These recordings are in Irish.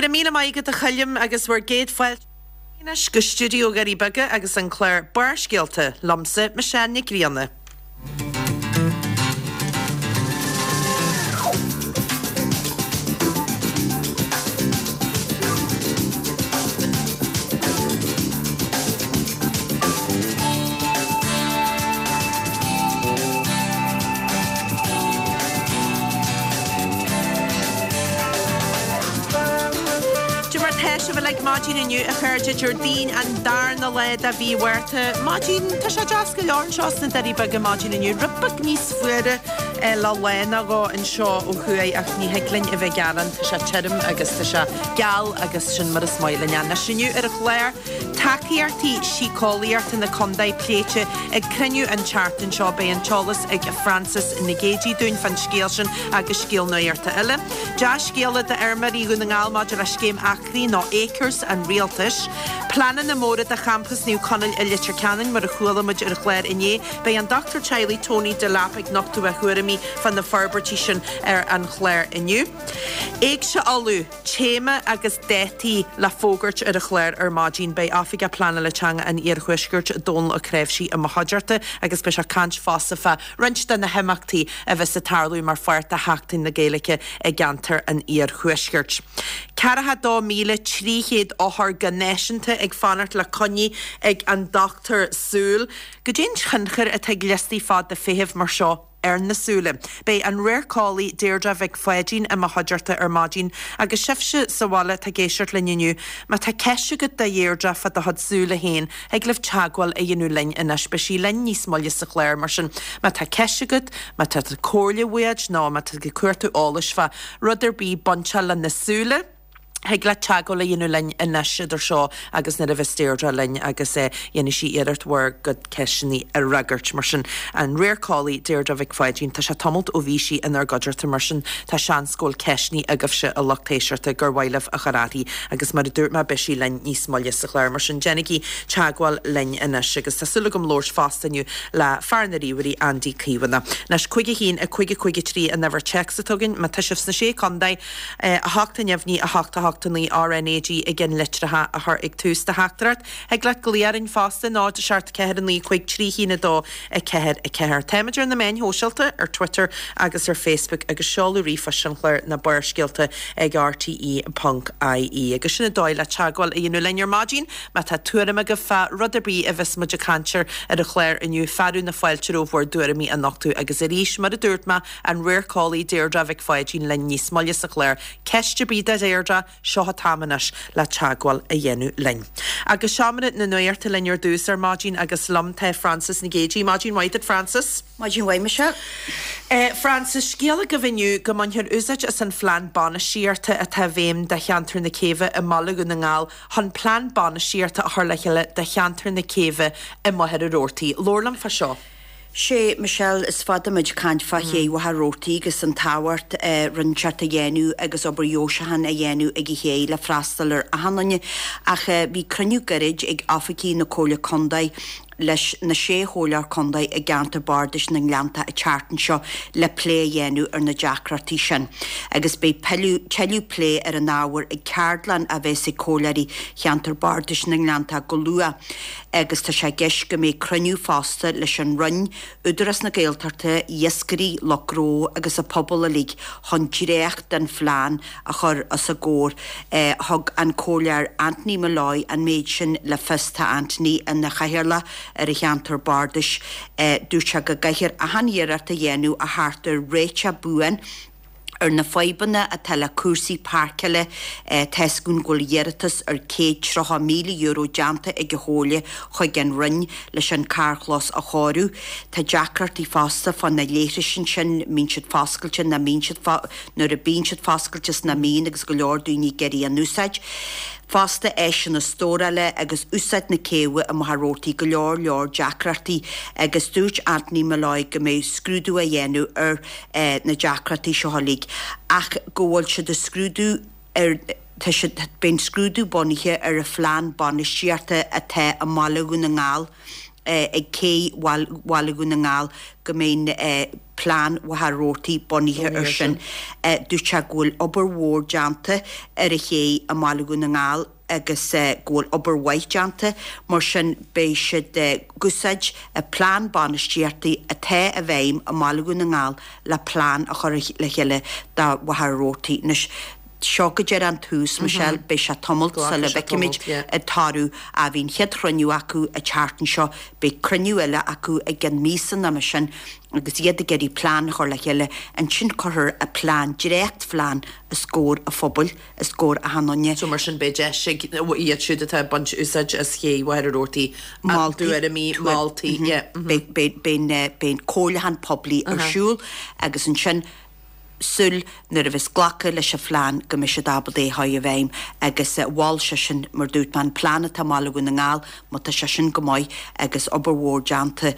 raibh míle maith agat a Choilm agus bhur gcéad fáilte anois go stiúideo Dhoirí Beaga agus an clár Barrscéalta liomsa, Michelle Nic Grianna. Cad é mar tá sibh uilig maidin inniu, a chairde, Déardaoin an darna lá de mhí Mhárta. Maidin, tá sé deas go leor anseo sna Doirí Beaga maidin inniu. Rud beag níos fuaire le lá nó dhó anseo ó thuaidh ach ní thig linn a bheith ag gearán, tá sé tirim agus tá sé geal agus sin mar is maith linn é. Anois inniu ar an chlár, Tacaíochtaí síceolaíochta na condae pléite ag cruinniú an tseachtain seo. Beidh an t-eolas ag Frances Nic Géadaigh dúinn fán scéal sin agus scéal nuachta eile. Dea-scéala d'fheirmeoirí Dhún na nGall maidir le scéim acraí nó Acres an Rialtais. Pleananna móra do champas Naomh Conaill i Leitir Ceanainn mar a chuala muid ar an chlár inné. Beidh an dochtúir teaghlaigh Tony Delap ag nochtadh a thuairimí fá na forbairtí sin ar an chlár inniu. Éigse Uladh. Téama agus dátaí le fógairt ar an chlár ar maidin. Beidh Oifigeach Pleanála Teanga an Iarthuaiscirt, Dónal Ó Cnáimhsí, i mo chuideachta agus beidh sé ag caint fosta fá roinnt de na himeachtaí a bheas ag tarlú mar pháirt de Sheachtain na Gaeilge i gceantar an Iarthuaiscirt. 42,300 othar go náisiúnta ag fanacht le coinní ag an dochtúir súl. Goidé an tionchar atá ag liostaí fada feithimh mar seo ar na súile. Beidh an radharceolaí Deirdre Mhic Pháidín i mo chuideachta ar maidin agus sibhse sa bhaile atá ag éisteacht linn inniu, má tá ceist agat do Dheirdre fá do chuid súile féin, thig libh teagmháil a dhéanamh linn anois. Beidh sí linn níos moille sa chlár, mar sin má tá ceist agat, má tá comhairle uait nó má tá tú ag cuartú eolais fá rud ar bith bainteach le na súile, Thig leat teagmháil a dhéanamh linn anois idir seo agus nuair a bheas Deirdre linn agus dhéanfaidh sí iarracht bhur gcuid ceisteanna a fhreagairt. Mar sin, an radharceolaí Deirdre Mhic Pháidín, tá sé tamalt ó bhí sí inár gcuideachta, mar sin tá seans go bhfuil ceisteanna agaibhse a lucht éisteachta gur mhaith libh a chur uirthi agus mar a dúirt mé beidh sí linn níos moille sa chlár. Mar sin déanaigí teagmháil linn anois agus tá súil agam labhairt fosta inniu le fear na ríomhairí Andy Caomhánach. Anois, 5 1 5 5 3 an uimhir téacs atá againn, má tá sibh sna Sé Contae, 8 neamhní 8 8 9 RnaG i gceann litreacha a chur ag tús do theachtaireacht. Thig leat glaoch orainn fosta, 0 7 4 9 5 3 1 2 4 4. Táimid ar na meáin shóisialta, ar Twitter agus ar Facebook agus seoladh ríomhphoist an chláir ná Barrscéalta ag rte ponc ie. Agus sin an dóigh le teagmháil a dhéanamh linn ar maidin. Má tá tuairim agaibh fá rud ar bith a bheas muid ag caint air ar an chlár inniu, fearadh na fáilte romhaibh bhur dtuairimí a nochtadh agus arís, mar a dúirt mé, An radharceolaí Deirdre Mhic Pháidín linn níos moille sa chlár. Ceist ar bith do Dheirdre, seo an t-am anois le teagmháil a dhéanamh linn. Agus seomra na nuachta linn ar dtús ar maidin agus liom tá Frances Nic Géadaigh. Maidin mhaith duit Frances. Maidin mhaith Michelle. Frances, scéal agaibh inniu go mbainfear úsáid as an phlean bainistíochta atá i bhfeidhm do cheantar na Céibhe i mBaile Dhún na nGall chun plean bainistíochta a chur le chéile do cheantar na Céibhe i Machaire Rabhartaigh. Labhair liom fá seo. Sé, Michelle, is fada muid ag caint fá ché Mhachaire Rabhartaigh agus an tábhacht rud inteacht a dhéanamh agus obair dheoiseacháin a dhéanamh ag an ché le freastal ar achan duine ach bhí cruinniú gairid ag oifigigh na Comhairle Contae leis na sé chomhairleoir contae i gceantar bardais na nGleanntach an tseachtain seo le plé a dhéanamh ar na deacrachtaí sin agus beidh tuilleadh plé ar an ábhar ag ceardlann a bheas ag comhairleoirí cheantar bardais na nGleanntach go luath. agus tá sé i gceist go mbeidh cruinniú fosta leis an Roinn, Údarás na Gaeltachta, iascairí, lucht gnó agus an pobal uilig chun dréacht den phlean a chur os a gcomhair. Thug an Comhairleoir Anthony Molloy an méid sin le fios. Tá Anthony ina chathaoirleach ar an cheantar bardais. Dúirt sé go gcaithfear achan iarracht a dhéanamh a theacht ar réiteach buan ar na fadhbanna atá le cúrsaí páirceála, tá's againn go bhfuil iarratas ar €130,000 déanta ag an Chomhairle chuig an Roinn leis an carrchlós a chóiriú. Tá deacrachtaí fosta fá na leithris ansin, mbíonn siad foscailte, nach mbíonn siad, nuair a bíonn siad foscailte is nach mbíonn agus go leor daoine ag iarraidh a n-úsáid. Fosta áiseanna stórála agus úsáid na céibhe i Machaire Rabhartaigh, go leor leor deacrachtaí agus dúirt Anthony Molloy go mbeidh scrúdú á dhéanamh ar na deacrachtaí seo uilig ach go bhfuil siad ag scrúdú ar tá siad beidh an scrúdú bunaithe ar an phlean bainistíochta atá i mBaile Dhún na nGall. Ag cé Bhaile Dhún na nGall go mbeidh plean Mhachaire Rabhartaigh bunaithe air sin. Dúirt sé go bhfuil obair mhór déanta ar an ché i mBaile Dhún na nGall agus go bhfuil obair mhaith déanta, mar sin beidh siad ag úsáid an plean bainistíochta atá i bhfeidhm i mBaile Dhún na nGall le plean a chur le chéile do Mhachaire Rabhartaigh. Anois, seo go díreach an tús, Michelle, beidh sé tamalt sula bhfeicfimid an toradh. Bhí an chéad chruinniú acu an tseachtain seo, beidh cruinniú eile acu i gceann míosa nó mar sin agus iad ag iarraidh plean a chur le chéile. Ansin cuirfear an plean, dréachtphlean, os comhair an phobail, os comhair achan duine. So mar sin beidh deis ag iad siúd atá ag baint úsáid as ché Mhachaire Rabhartaigh a dtuairimí, moltaí, yeah. Beidh an comhairliúchán poiblí ar siúl agus ansin súil nuair a bheas glactha leis an phlean go mbeidh siad ábalta é a chur i bhfeidhm agus mhol seisean, mar dúirt mé, an plean atá i mBaile Dhún na nGall, má tá sé sin go maith agus obair mhór déanta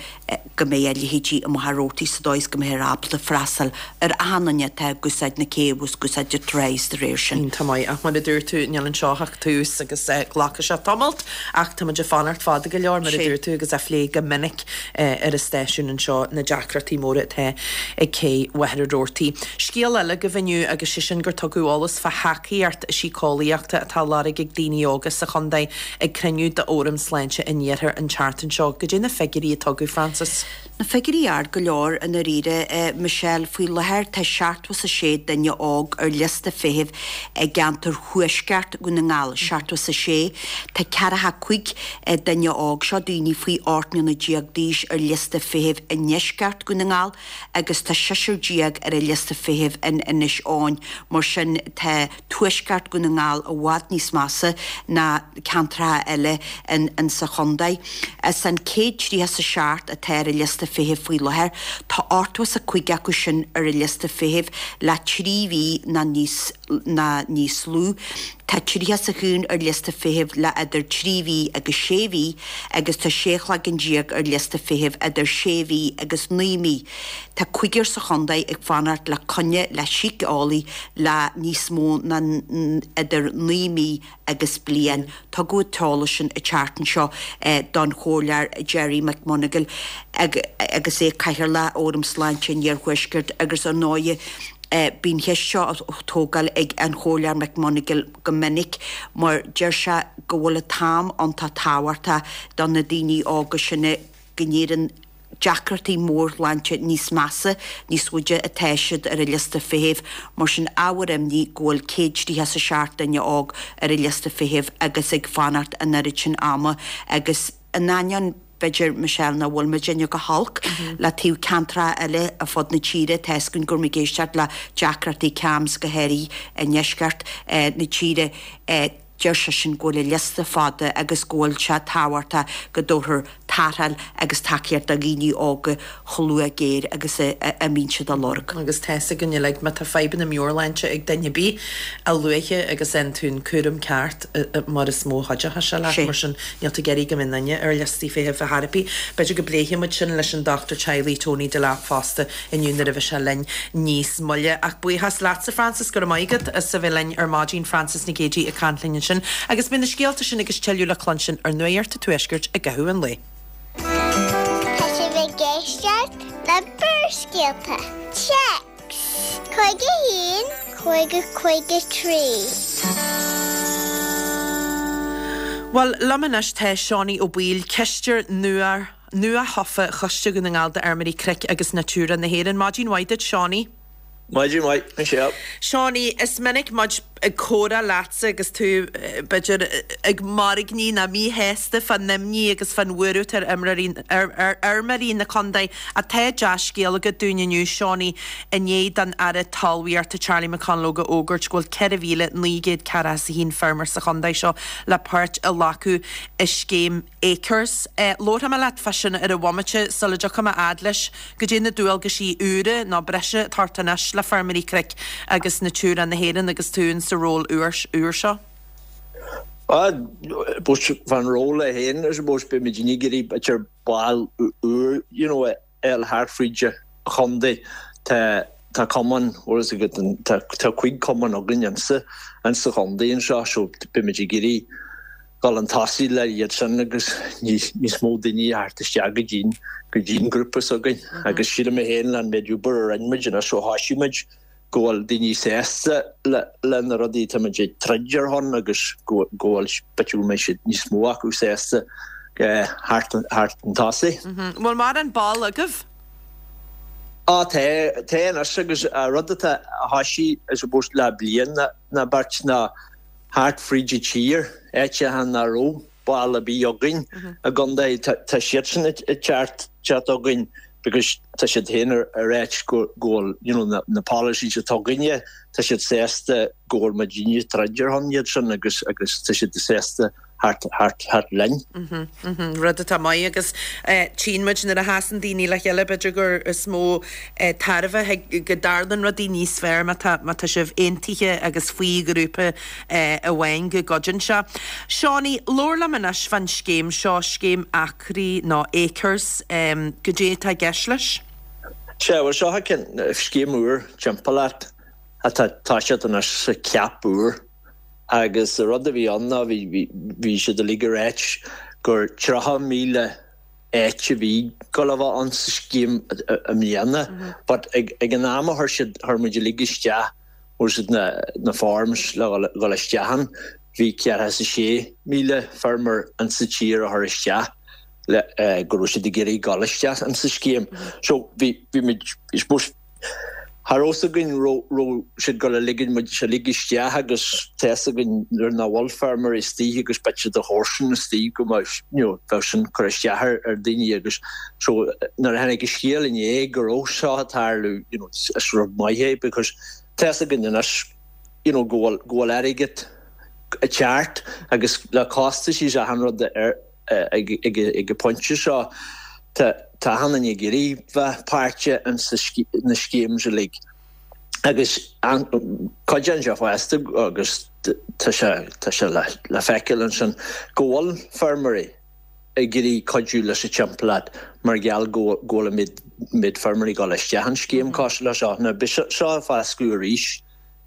go mbeidh a leithéidí i Machaire Rabhartaigh sa dóigh is go mbeifear ábalta freastal ar achan duine atá ag úsáid na cé agus ag úsáid an trá de réir sin. Iontach maith ach mar a dúirt tú níl anseo ach tús agus glacfaidh sé tamalt ach tá muid ag fanacht fada go leor mar a dúirt tú agus á phlé go minic ar an stáisiún anseo na deacrachtaí móra atá ag cé Mhachaire Rabhartaigh. Scéal eile agaibh inniu agus sé sin gur tugadh eolas fá thacaíocht síceolaíochta atá á lorg ag daoine óga sa chontae ag cruinniú d'Fhóram Sláinte an Iarthair an tseachtain seo. Goidé na figiúirí a tugadh, Frances? Na figiúirí ard go leor i ndáiríre, Michelle. Faoi láthair tá 76 duine óg ar liosta feithimh i gceantar thuaisceart Dhún na nGall, 76. Tá 45 duine óg, seo daoine faoi 18 mbliana d'aois, ar liosta feithimh i ndeisceart Dhún na nGall agus tá seisear ar an liosta feithimh in Inis Eoghain. Mar sin tá tuaisceart Dhún na nGall i bhfad níos measa ná ceantracha eile in sa chontae. As an 137 atá ar an liosta feithimh faoi láthair, tá 85 acu sin ar an liosta feithimh le 3 mhí ná níos ná níos lú. Tá 31 ar liosta feithimh le idir 3 mhí agus 6 mhí agus tá 16 chloigeann ar liosta feithimh idir 6 mhí agus 9 mí. Tá cúigear sa chontae ag fanacht le coinne le síceolaí le níos mó ná idir 9 mí agus bliain. Tugadh an t-eolas sin an tseachtain seo don Chomhairleoir Gerry McMonagall agus é Cathaoirleach Fhóram Sláinte an Iarthuaiscirt agus ar ndóigh bíonn an cheist seo á tógáil ag an Chomhairleoir McMonagall go minic mar deir sé go bhfuil an t-am iontach tábhachtach do na daoine óga sin go n-éiríonn deacrachtaí mórshláinte níos measa níos faide atá siad ar an liosta feithimh. Mar sin, ábhar imní go bhfuil 137 duine óg ar an liosta feithimh agus ag fanacht an oiread sin ama agus in ainneoin, b'fhéidir, Michelle, nach bhfuil muidinne go holc le taobh ceantracha eile ar fud na tíre, tá a fhios againn go raibh muid ag éisteacht le deacrachtaí CAMHS go háirithe i ndeisceart na tíre. Deir seisean go bhfuil an liosta fada agus go bhfuil sé tábhachtach go dtabharfar tarrtháil agus tacaíocht do dhaoine óga chomh luath géar agus a mbíonn siad á lorg. Agus tá fhios againn uilig, má tá fadhbanna meabhairshláinte ag duine ar bith, a luaithe agus a fhaigheann tú an cúram ceart mar is mó a chuideochas sé leat. Mar sin, níl tú ag iarraidh go mbeidh duine ar liostaí feithimh ar chor ar bith. B'fhéidir go bpléifidh muid sin leis an dochtúir teaghlaigh Tony Delap fosta inniu nuair a bheidh sé linn níos moille. Ach buíochas leatsa Frances, go raibh maith agat as a bheith linn ar maidin, Frances Nic Géadaigh ag caint linn ansin. Agus beidh na scéalta sin agus tuilleadh le cluinstin ar Nuacht an Tuaiscirt i gcaitheamh an lae. Tá sibh ag éisteacht le Barrscéalta. Téacs 51 50 53. Bhuel, liom anois tá Seánie Ó Baoill, cisteoir nua Nua-thofa Choiste Dhún na nGall d'Fheirmeoirí Cnoic agus Natura na hÉireann. Maidin mhaith duit, Seánie. Maidin mhaith, Michelle. Seánie, is minic muid ag comhrá leatsa agus tú, b'fhéidir, ag mairgní nó míshásta fán imní agus fán bhuaireamh atá ar ar fheirmeoirí na contae. Ach tá dea-scéal agat dúinn inniu, Seánie, i ndiaidh don Aire Talmhaíochta Charlie McConalogue a fhógairt go bhfuil 4,941 feirmeoir sa chontae seo le páirt a ghlacadh i scéim Acres. Labharfaidh mé leat fá sin ar an bhomaite sula dtiocfaidh mé fhad leis. Goidé na dualgaisí úra nó breise atá ort anois le Feirmeoirí Cnoic agus Natura na hÉireann agus tú in sa ról úr seo? Ah, fán ról é féin, I suppose, beidh muid ag iarraidh b'fhéidir baill úr, you know, a fháil thart fríd an chontae. Tá tá cumann, bhfuil fhios agat, tá tá cuig cumann againn insa insa chontae anseo so beidh muid ag iarraidh. dhul chun tosaigh le iad sin agus níos mó daoine a theacht isteach go dtí'n go dtí'n grúpa s'againn agus sílim mé féin le an méid obair a rinne muid anois ó thoisigh muid go bhfuil daoine sásta le le na rudaí atá muid ag troid ar shon agus go go bhfuil b'fhéidir go mbeidh siad níos mó acu sásta theacht chun tosaigh. Bhfuil mórán ball agaibh? Á tá, tá anois agus rud atá a thoisigh I suppose le bliain nó beirt ná thart fríd an tír, áiteacha nach raibh ball ar bith againn i gcontae, tá siadsan ag teacht chugainn because tá siad féin ag ráit go bhfuil you know na policies atá againne, tá siad sásta go bhfuil muidinne ag troid ar shon iad sin agus agus tá siad sásta theacht theacht theacht linn. Rud atá maith agus tchíonn muid nuair a sheasann daoine le chéile b'fhéidir gur is mó tairbhe go dtarlann rudaí níos fearr má tá má tá sibh aontaithe agus faoi ghrúpa amháin go gcuidíonn sé. Seánie, labhair liom anois fán scéim seo, scéim acraí nó Acres, goidé atá i gceist leis? Sea, bhuel seo scéim úr timpeallacht atá toiseacht anois sa CAP úr. Agus an rud a bhí ann ná bhí bhí siad uilig ag ráit gur 30,000 áit a bhí ag gabháil a bheith ann sa scéim i mbliana but ag ag an am a chuir siad chuir muid uilig isteach bhfuil siad na na forms le dhul dhul isteach ann bhí ceathracha is a sé míle feirmeoir in sa tír a chuir isteach le go raibh siad ag iarraidh dhul isteach in sa scéim. So bhí bhí muid I suppose Cha raibh fhios againn raibh siad ag gabháil a ligean muid uilig isteach agus tá fhios againn nuair nach bhfuil feirmeoirí istigh agus b'fhéidir do chomharsan istigh go mbeadh you know bheadh sin cur isteach ar ar daoine agus so nuair a tháinig an scéal inné go raibh seo ag tarlú you know is rud maith é because tá fhios againn anois you know go bhfuil go bhfuil airgead ag teacht agus le costaisí is achan rud ar Ag an bpointe seo, tá achan duine ag iarraidh bheith páirteach ins na schemes uilig agus cuidíonn sé fosta agus tá sé tá sé le feiceáil ansin go bhfuil feirmeoirí ag iarraidh cuidiú leis an timpeallacht mar gheall go bhfuil an méid feirmeoirí ag dul isteach in scéim cosúil le seo. Now beidh seo ag foscladh arís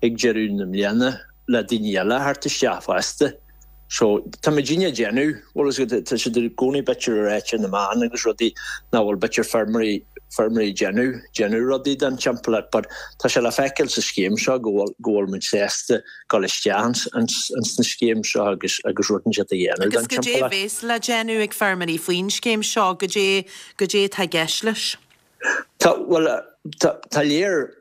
ag deireadh na mbliana le daoine eile a theacht isteach fosta. So, tá muidinne ag déanamh, bhfuil fhios agat, tá siad i gcónaí b'fhéidir ag ráit ar na meáin agus rudaí nach bhfuil b'fhéidir feirmeoirí, feirmeoirí ag déanamh, déanamh rudaí don timpeallacht but tá sé le feiceáil sa scéim seo go bhfuil, go bhfuil muid sásta dul isteach ins, ins, ins na scéim seo agus, agus rud inteacht a dhéanamh don Agus goidé a timpeallacht. bhéas le déanamh ag feirmeoirí faoin scéim seo, goidé, goidé atá i gceist leis? Tá, bhuel, tá, tá léir,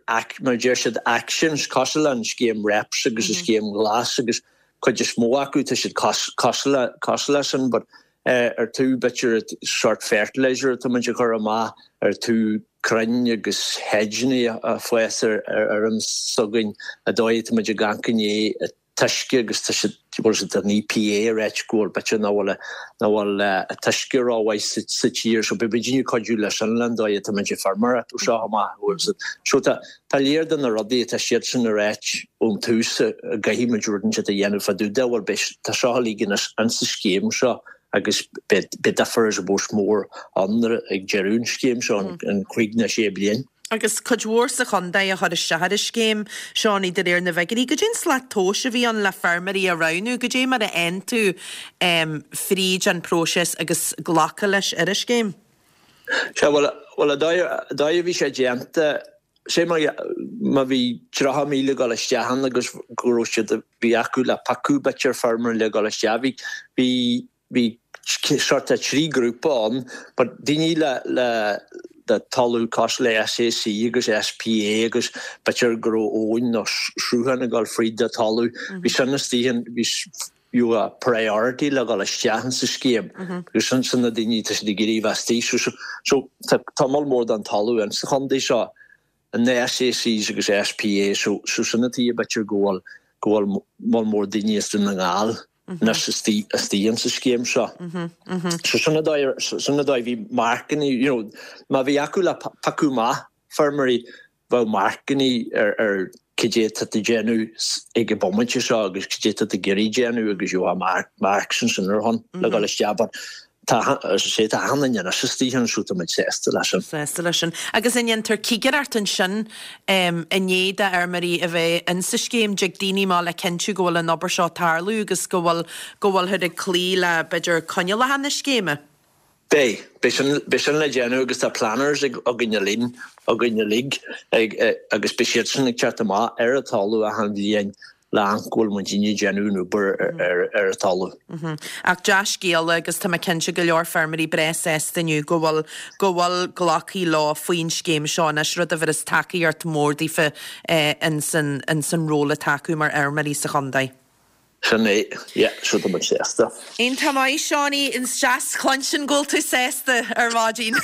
mar a deir siad, actions cosúil le an scéim REPS agus an scéim Ghlas agus cuid is mó acu tá siad cosúil le, cosúil le sin but ar tú b'fhéidir sort fertilizer atá muid a chur amach, ar tú crainn agus hedgeanna a fás ar ar fheirm s'againn, an dóigh atá muid ag amharc i ndiaidh t-uisce agus tá siad, bhfuil siad an EPA ag ráit go bhfuil b'fhéidir nach bhfuil nach bhfuil an t-uisce rómhaith sa sa tír so beidh muidinne ag cuidiú leis sin le an dóigh atá muid ag feirmeoireacht ó seo amach bhfuil siad so tá tá léir de na rudaí atá siadsan ag ráit ón tús a gcaithfidh muid rud inteacht a dhéanamh fá dtaobh de bhuel beidh tá seo uilig ins an sa scéim seo agus beidh beidh difear I suppose mór ann ag deireadh an scéim seo an 5 nó 6 bliain. Agus cuid mhór sa chontae a chuir isteach ar an scéim, Seánie, de réir na bhfigiúirí. Goidé an slat tomhais a bhí ann le feirmeoirí a roghnú? Goidé mar a fhaigheann tú fríd an próiseas agus glacadh leis ar an scéim? Sea, bhuel, bhuel, an dóigh, an dóigh a bhí sé déanta, sé mar, má bhí 30,000 ag dul isteach ann agus go raibh siad, bhí acu le piocadh b'fhéidir feirmeoirí le dhul isteach, bhí, bhí, Bhí sort of 3 grúpa ann but daoine le le le talamh cosúil le SAC agus SPA agus b'fhéidir go raibh abhainn nó sruthán ag dul fríd do talamh, bhí sin istigh in bhí you a priority le dhul isteach in sa scéim because sin sin na daoine tá siad ag iarraidh bheith istigh so so so tá tá moll mór den talamh in sa chontae seo in na SACs agus SPA so so sin an tuige b'fhéidir go bhfuil go bhfuil moll mór daoine as Dún na nGall anois istigh in sa scéim seo. So sin an dóigh, sin an dóigh, bhí marcanna, you know, má bhí acu le piocadh amach feirmeoirí, bheadh marcanna ar ar cad é atá tú ag déanamh ag an bomaite seo agus cad é atá tú ag iarraidh déanamh agus you have marks ansin ar shon le dhul isteach but. Tá, as I say, tá achan duine anois istigh ann so tá muid sásta leis sin. Sásta leis sin. Agus an ndéantar cigireacht ansin i ndiaidh d'fheirmeoirí a bheith insa scéim, dtig daoine amach le cinntiú go bhfuil an obair seo ag tarlú agus go bhfuil, go bhfuilthear ag cloí le, b'fhéidir, coinníollacha na scéime? Beidh. Beidh sin, beidh sin le déanamh agus tá planners ag, againn uilig, againn uilig ag, agus beidh siadsan ag teacht amach ar an talamh achan bhliain le amharc go bhfuil muidinne ag déanamh an obair ar an talamh. Ach dea-scéala agus tá mé cinnte go leor feirmeoirí breá sásta inniu go bhfuil go bhfuil glactha leo faoin scéim seo anois, rud a bhéarfas tacaíocht mhór daofa ins an ins an ról atá acu mar fheirmeoirí sa chontae. Sin é, yeah, so tá muid sásta. Iontach maith, Seánie, is deas cluinstin go bhfuil tú sásta ar maidin.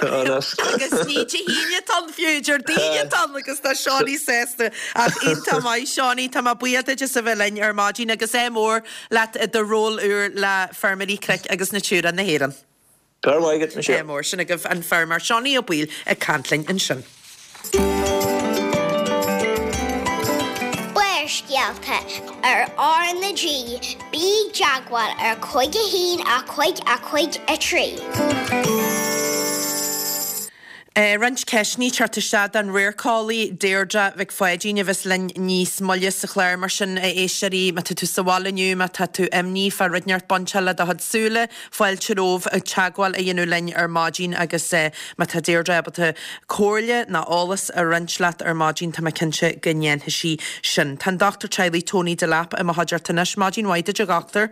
Agus ní Dé hAoine atá ann fiú, Déardaoin atá ann agus tá Seánie sásta. Ach iontach maith, Seánie, tá mé buíoch duit as a bheith linn ar maidin agus ádh mór leat i do ról úr le Feirmeoirí Cnoic agus Natura na hÉireann. Go raibh maith agat, Michelle. Ádh mór. Sin agaibh an feirmeoir Seánie Ó Baoill ag caint linn ansin. Barrscéalta ar R na G, bí i dteagmháil ar 5 1 5 5 3. Roinnt ceisteanna ag teacht isteach don radharceolaí Deirdre Mhic Pháidín a bheas linn níos moille sa chlár. Mar sin, a éisteoirí, má tá tú sa bhaile inniu, má tá tú imní fá rud inteacht bainteach le do chuid súile, fáilte romhaibh teagmháil a dhéanamh linn ar maidin agus má tá Deirdre ábalta comhairle ná eolas a roinnt leat ar maidin, tá mé cinnte go ndéanfaidh sí sin. Tá an Dochtúir Teaghlaigh Tony Delap i mo chuideachta anois. Maidin mhaith duit, a Dhochtúir.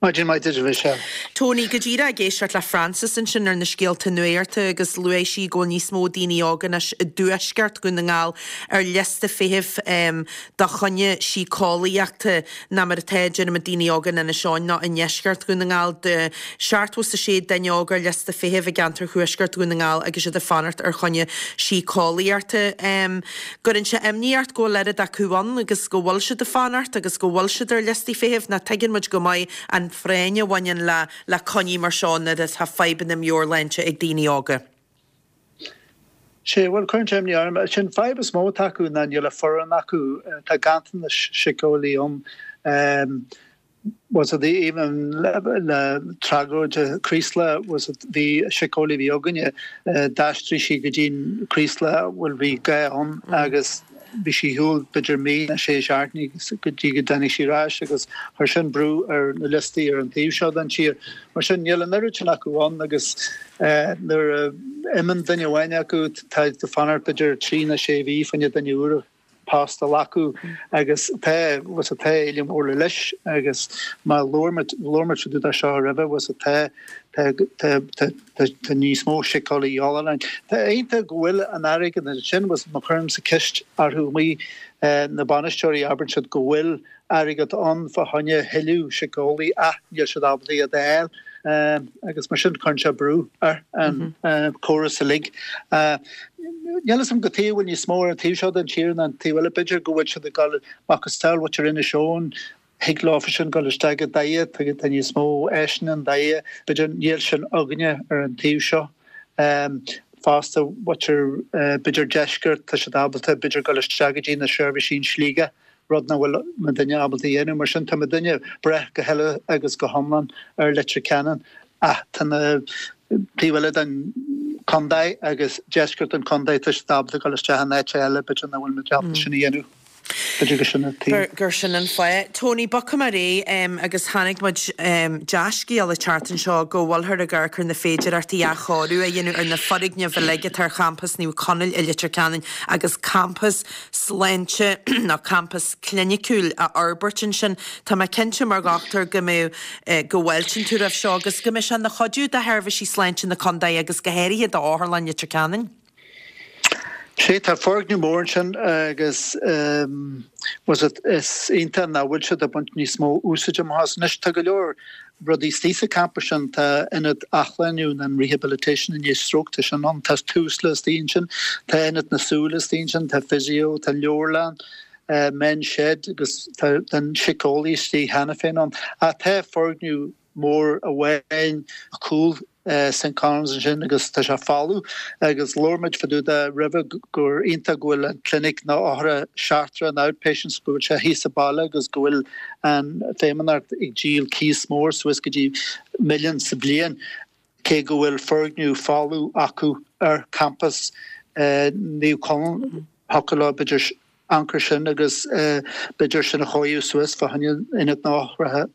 Maidin mhaith duit, a Mhichelle. Tony, go díreach ag éisteacht le Frances ansin ar na scéalta nuachta agus luaigh sí go bhfuil níos mó daoine óga anois i dtuaisceart Dhún na nGall ar liosta feithimh do choinne síceolaíochta ná mar atá, deirimid, daoine óga in Inis Eoghain nó i ndeisceart Dhún na nGall. De 76 duine óg ar liosta feithimh i gceantar thuaisceart Dhún na nGall agus iad ag fanacht ar choinne síceolaíochta. Gcuireann sé imní ort go bhfuil oiread acu ann agus go bhfuil siad ag fanacht agus go bhfuil siad ar liostaí feithimh, nó tuigeann muid go maith an phráinn a bhaineann le le coinní mar seo nuair atá fadhbanna meabhairshláinte ag daoine óga. Sea, bhuel, cuireann sé imní orm. Sin fadhb is mó atá acu ná níl an foireann acu. Tá ganntanas síceolaí ann. Was it even le tragóid Chraoslaigh was it bhí síceolaí a bhí againne d'aistrigh sí go dtí'n Craoslach bhuel bhí gá ann agus bhí sí ar shiúl b'fhéidir mí nó sé seachtainí go dtí go dtáinig sí ar ais agus chuir sin brú ar na liostaí ar an taobh seo den tír. Mar sin níl an oiread sin acu ann agus nuair a imíonn duine amháin acu tá tú ag fanacht b'fhéidir trí nó sé mhí fá choinne duine úr a post a ghlacadh agus tá was it tá éileamh mór le leis agus má labhair muid labhair muid fá dtaobh de seo roimhe was it tá tá tá tá tá tá níos mó síceolaí a dhíobháil orainn. Tá iontach go bhfuil an airgead ansin was má chuirimse ceist orthu amuigh na bainisteoirí abrann siad go bhfuil airgead ann fá choinne thuilleadh síceolaí ach níl siad ábalta iad a fháil agus mar sin cuireann sé brú ar an chóras uilig. Níl fhios agam cad chuige a bhfuil níos mó ar an taobh seo den tír ná an taobh eile. B'fhéidir go bhfuil siad ag dul macasamhail mhuintir Inis Eoghain, thig leofa sin dul isteach i dTaighe, tá níos mó áiseanna i nDoire, b'fhéidir níl sin againne ar an taobh seo. Fosta mhuintir b'fhéidir deisceart, tá siad ábalta b'fhéidir dul isteach go dtí na seirbhísí in Sligeach. rud nach bhfuil muidinne ábalta a dhéanamh. Mar sin, tá muidinne ag brath go huile agus go hiomlán ar Leitir Ceanainn ach tá na taobh eile den chontae agus deisceart an chontae, tá siad ábalta dul isteach in áit eile, b'fhéidir nach bhfuil muid ábalta sin a dhéanamh. B'fhéidir gur sin an taobh. Gur sin an fáth. Tony, bogfaidh mé ar aghaidh agus chonaic muid dea-scéal an tseachtain seo go bhfuilthear ag amharc ar na féidearthachtaí athchóiriú a dhéanamh ar na foirgnimh uilig atá ar champas Naomh Conaill i Leitir Ceanainn agus campas sláinte nó campas cliniciúil a fhorbairt ansin. Tá mé cinnte mar dhochtúir go mbeidh, go bhfáiltíonn tú roimh seo agus go mbeidh sé ina chuidiú do sheirbhísí sláinte na contae agus go háirithe d'Otharlann Leitir Ceanainn. Sea, tá foirgneamh mór ansin agus was it, is iontach nach bhfuil siad ag baint níos mó úsáide amach as. Anois tá go leor rudaí istigh sa campas sin, tá ionad athshlániú nó an rehabilitation i ndiaidh stróc, tá sin ann, tá Tusla istigh ansin, tá ionad na súl istigh ansin, tá physio, tá leabharlann, men's shed agus tá an síceolaí istigh cheana féin ann. Ach tá foirgneamh mór amháin cúl. St Conan's ansin agus tá sé folamh agus labhair muid fá dtaobh de roimhe gur iontach go bhfuil an clinic na othar seachtrach an outpatients go bhfuil sé thíos sa baile agus go bhfuil an Feidhmeannacht ag díol cíos mór suas go dtí milliún sa bhliain cé go bhfuil foirgneamh folamh acu ar campas Naomh Conaill thiocfadh leo b'fhéidir amharc air sin agus b'fhéidir sin a chóiriú suas fá choinne ionad na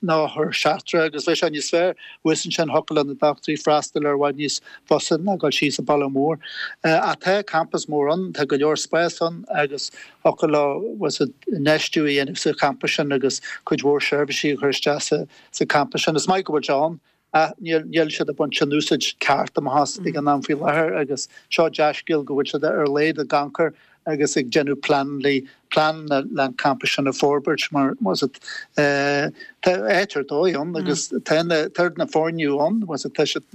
n-othar seachtrach agus bheadh sé níos fearr thuas ansin thiocfadh le na dochtúirí freastal ar i bhfad níos fusa ná dul síos an baile mór. Ach tá campas mór ann, tá go leor spás ann agus thiocfadh leo infheistiú a dhéanamh sa champas sin agus cuid mhór seirbhísí a chur isteach sa champas sin. Is maith go bhfuil sé ann Ach níl siad ag baint an úsáid ceart amach as ag an am faoi láthair agus seo dea-scéal go bhfuil siad ar a laghad ag amharc air agus ag déanamh pleananna pleananna le an campas sin a forbairt mar was it tá áit ar dóigh ann agus tá na tá na foirgnimh ann was it tá siad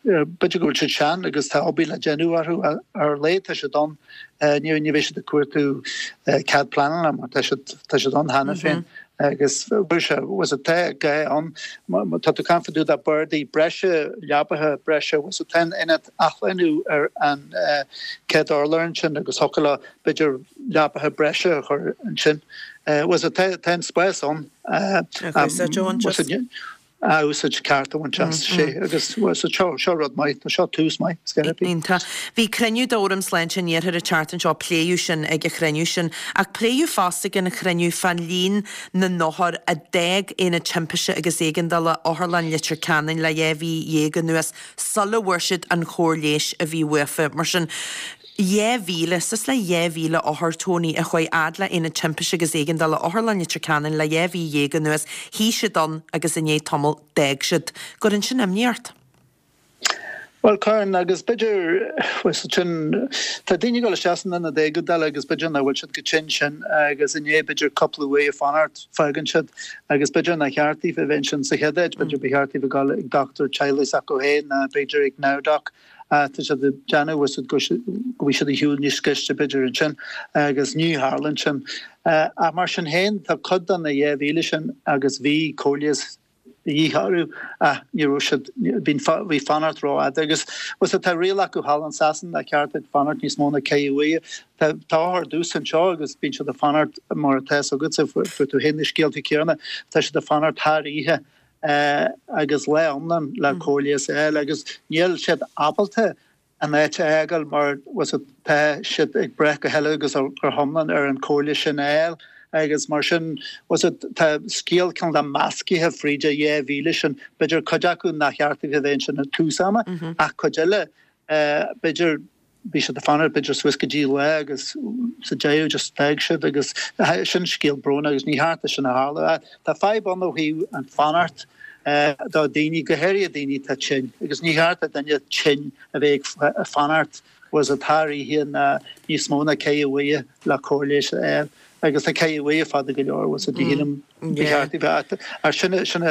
b'fhéidir go bhfuil siad sean agus tá obair le déanamh orthu ar a laghad tá siad ann ní ní bheidh siad ag cuartú cead pleanála mar tá siad tá siad ann cheana féin. Agus bhfuil sé, was it, tá gá ann, má tá tú ag caint fá dtaobh de bardaí breise, leabaithe breise, was it, tá an ionad athshlánú ar an chéad urlár ansin agus thiocfadh leo b'fhéidir leabaithe breise a chur ansin. Was it, tá an spás ann. Was it, a úsáid ceart a bhaint as, sé agus seo, seo rud maith, tá seo tús maith, is gá Iontach. Bhí cruinniú d'Fhóram Sláinte an Iarthair an tseachtain seo, pléadh sin ag an chruinniú sin. Ach pléadh fosta ag an chruinniú fán líon na n-othar a d'fhág Aonad Timpiste agus Éigeandála Otharlann Leitir Ceanainn le 12 mhí anuas sula bhfuair siad an chóir leighis a bhí uafa. Mar sin, 2,000, suas le 2,000 othar, Tony, a chuaigh fhad le Aonad Timpiste agus Éigeandála Otharlann Leitir Ceanainn le 12 mhí anuas, shuigh siad ann agus i ndiaidh tamaill d'fhág siad. Gcuireann sin imní ort? Bhuel, cuireann, agus b'fhéidir, bhuel, sin, tá daoine ag dul isteach san ionad éigeandála agus b'fhéidir nach bhfuil siad chomh tinn sin agus i ndiaidh b'fhéidir cúpla uair ag fanacht, fágann siad agus b'fhéidir nár cheart daofa a bheith ansin sa chéad áit, b'fhéidir ba cheart daofa dul ag dochtúir teaghlaigh s'acu féin ná b'fhéidir ag NowDoc. Tá siad ag déanamh bhfuil siad go bhfuil siad ar shiúl níos gaiste b'fhéidir ansin agus ní tharlaíonn sin. Ach mar sin féin tá cuid de na 2,000 sin agus bhí cóir leighis de dhíth orthu ach ní raibh siad, bhí bhí fanacht rófhada agus bhfuil siad tá riail acu thall in Sasain nár cheart duit fanacht níos mó ná ceithre uaire. Tá tá othair domhsa anseo agus bíonn siad ag fanacht mar atá fhios agatsa fuair tú féin na scéalta céanna tá siad ag fanacht thar oíche agus lá iomlán le cóir leighis a fháil agus níl siad ábalta an áit a fhágáil mar tá siad ag brath go huile agus go hiomlán ar an chóir leighis sin a fháil agus mar sin tá scéal cineál de meascaithe fríd an 2,000 sin, b'fhéidir cuid acu nár cheart daofa a bheith ansin ag tús ama ach cuid eile b'fhéidir bhí siad ag fanacht b'fhéidir suas go dtí lá agus sa deireadh just d'fhág siad agus sin scéal brónach agus ní cheart é sin a tharlú. Tá fadhb ann ó thaobh an fanacht do daoine, go háirithe daoine atá tinn agus ní cheart do duine tinn a bheith ag fanacht was it thar oíche ná níos mó ná ceithre uaire le cóir leighis a fháil agus tá ceithre uaire fada go leor was it shílim ba cheart a bheith ach sin sin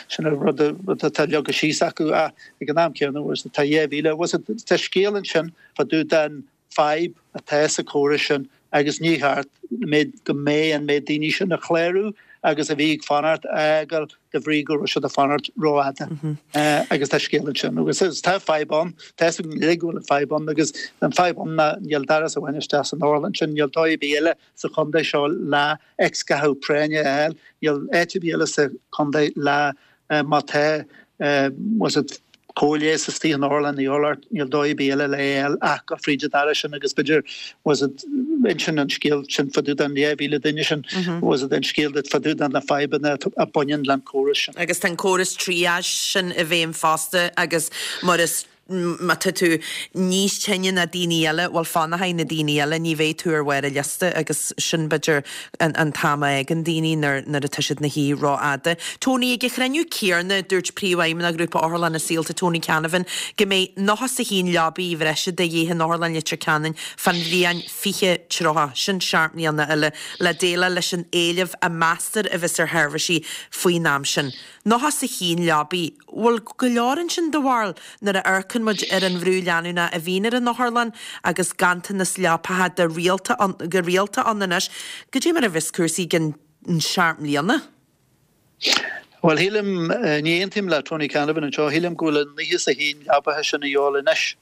sin an rud rud atá leagtha síos acu ach ag an am céanna was it tá 2,000 was it tá scéal ansin fá dtaobh den fadhb atá sa chóras sin agus ní cheart méid go mbeidh an méid daoine sin a chlárú agus a bhí ag fanacht a fhágáil de bhrí go raibh siad ag fanacht rófhada agus tá scéal ansin agus tá fadhb ann tá fhios againn uilig go bhfuil an fadhb ann agus an fadhb ann ná níl doras amháin isteach san otharlann sin níl dóigh ar bith eile sa chontae seo le x-ghathú práinne a fháil. Níl áit ar bith eile sa chontae le má tá was it cóir leighis istigh in otharlann Uí Fhoghlairt, níl dóigh ar bith eile le é a fháil ach go fríd an doras sin agus b'fhéidir was it insíonn an scéal sin fá dtaobh den 2,000 duine sin was it an scéal duit fá dtaobh de na fadhbanna a bhaineann le an córas sin. Agus tá an córas triage sin i bhfeidhm fosta agus mar is Má tá tú níos tinne ná daoine eile, bhuel fanfaidh na daoine eile, ní bheidh tú ar bharr an liosta agus sin b'fhéidir an t-am a fhágann daoine nuair atá siad ina shuí rófhada. Tony, Ag an chruinniú céanna, dúirt Príomhfheidhmeannach Ghrúpa Otharlanna Saolta, Tony Canavan, go mbeidh 91 leabaidh bhreise de dhíth in Otharlann Leitir Ceanainn fán bhliain 2030, sin seacht mbliana eile, le déileáil leis an éileamh a meastar a bheas ar sheirbhísí faoin am sin. 91 leabaidh. Bhfuil go leor ansin do bharúil nuair a amharcann muid ar an bhrú leanúnach a bhíonn ar an otharlann agus ganntanas leapacha de rialta ann, go rialta ann anois. Goidé mar a bheas cúrsaí i gcionn seacht mbliana? Bhuel, shílim, ní aontaím le Tony Canavan anseo, shílim go bhfuil an 91 leabaithe sin a dhíobháil anois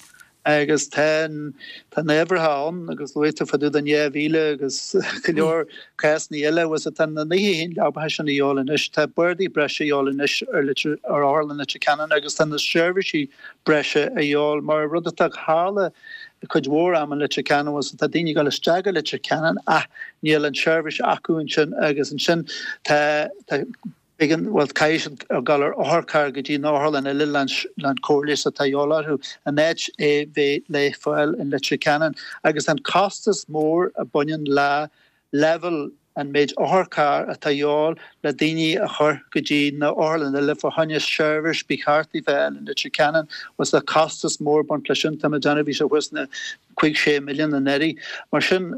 agus tá an, tá na huimhreacha ann agus luaigh tú fá dtaobh den 2,000 agus go leor cásanna eile, bhuel tá na 91 leabaithe sin a dhíobháil anois, tá bardaí breise a dhíobháil anois ar Leitir, ar Otharlann Leitir Ceanainn agus tá na seirbhísí breise a dhíobháil mar rud atá ag tharla cuid mhór am in Leitir Ceanainn, bhuel tá daoine ag dul isteach go Leitir Ceanainn ach níl an tseirbhís acu ansin agus ansin tá, tá. B'éigean, bhuel, caithfidh siad dul ar otharcharr go dtí an otharlann eile leis an cóir leighis atá a dhíobháil orthu, in áit é bheith le fáil in Leitir Ceanainn. Agus an costas mór a baineann le leibhéal an méid otharcharr atá a dhíobháil le daoine a chur go dtí na otharlann eile fá choinne seirbhís ba cheart a bheith in Leitir Ceanainn, bhuel tá costas mór ag baint leis sin, tá mé ag déanamh, bhí sé thuas na 5, 6 milliún anuraidh. Mar sin.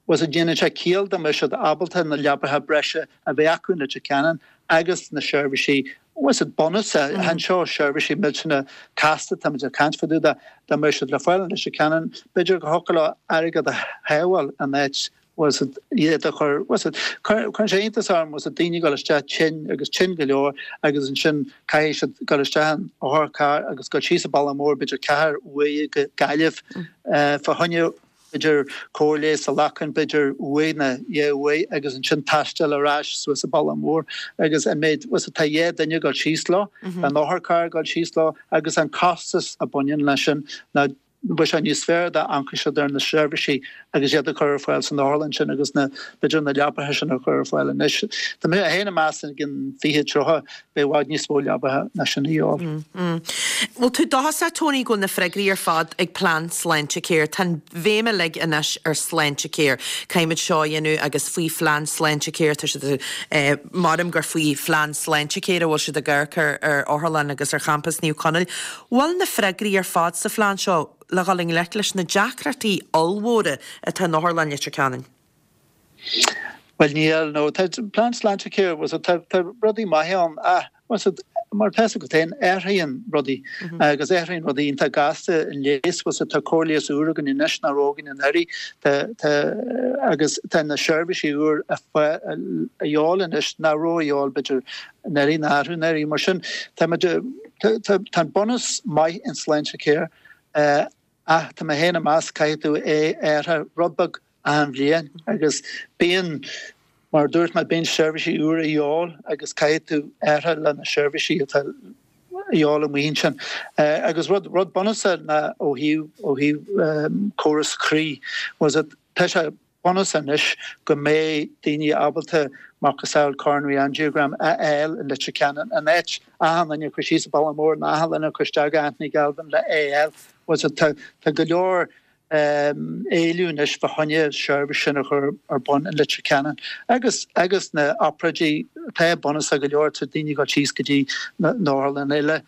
Bhuel déanann sé ciall dá mbeadh siad ábalta na leabaithe breise a bheith acu in Leitir Ceanainn agus na seirbhísí, bhuel bunúsach, chan seo seirbhísí millteanna casta, táimid ag caint fá dtaobh de, dá mbeadh siad le fáil in Leitir Ceanainn, b'fhéidir go thiocfadh leo airgead a shábháil in áit, bhuel iad a chur, bhuel cuireann sé iontas orm, bhuel daoine ag dul isteach tinn agus tinn go leor agus ansin caithfidh siad dul isteach in otharcharr agus dul síos an bealach mór b'fhéidir ceathair uaire go Gaillimh fá choinne b'fhéidir cóir leighis a ghlacadh, b'fhéidir uair nó dhá uair agus ansin taisteal ar ais suas an bealach mór agus an méid, bhuel tá dhá duine ag dul síos leo, an otharcharr ag dul síos leo agus an costas a bhaineann leis sin ná bheadh sé níos fearr dá amharcfadh siad ar na seirbhísí agus iad a chur ar fáil san otharlann sin agus na, b'fhéidir na leapaithe sin a chur ar fáil anois. Tá mé féin ag meas i gcionn 20, 30, beidh i bhfad níos mó leabaithe ná sin a dhíobháil. Bhfuil tú dóchasach, Tony, go bhfuil na freagraí ar fad ag plean Sláintecare? Tá an bhéim uilig anois ar Sláintecare. Caithfimid seo a dhéanamh agus faoi phlean Sláintecare, tá siad, maram gur faoi phlean Sláintecare a bhfuil siad ag amharc ar ar otharlann agus ar champas Naomh Conaill. Bhfuil na freagraí ar fad sa phlean seo le dhul i ngleic leis na deacrachtaí ollmhóra atá in Otharlann Leitir Ceanainn? Bhuel níl, no. Tá plean Sláintecare, bhuel tá tá rudaí maithe ann ach bhuel mar tá fhios agat féin, athraíonn rudaí agus athraíonn rudaí iontach gasta in leigheas, bhuel tá cóir leighis úr againn anois nach raibh againn anuraidh, tá tá agus tá na seirbhísí úr a a dhíobháil anois nach raibh a dhíobháil b'fhéidir anuraidh nó arú anuraidh. Mar sin tá muid tá tá tá an bunús maith in Sláintecare ach tá mé féin ag meas caithfidh tú é a athrú rud beag achan bhliain agus bíonn, mar a dúirt mé, bíonn seirbhísí úra a dhíobháil agus caithfidh tú athrú le na seirbhísí atá a dhíobháil amuigh ansin. Agus rud, rud bunúsach ná ó thaobh, ó thaobh córas croí, was it, tá sé bunúsach anois go mbeidh daoine ábalta macasamhail coronary angiogram a fháil i Leitir Ceanainn in áit achan duine a chur síos an bealach mór nó achan duine a chur isteach go Anthony Galvin le é a fháil. Was it, tá, tá go leor éileamh anois fá choinne seirbhís sin a chur ar bun in Leitir Ceanainn agus agus na obráidí atá bunúsach go leor tá daoine ag dul síos go dtí na otharlanna eile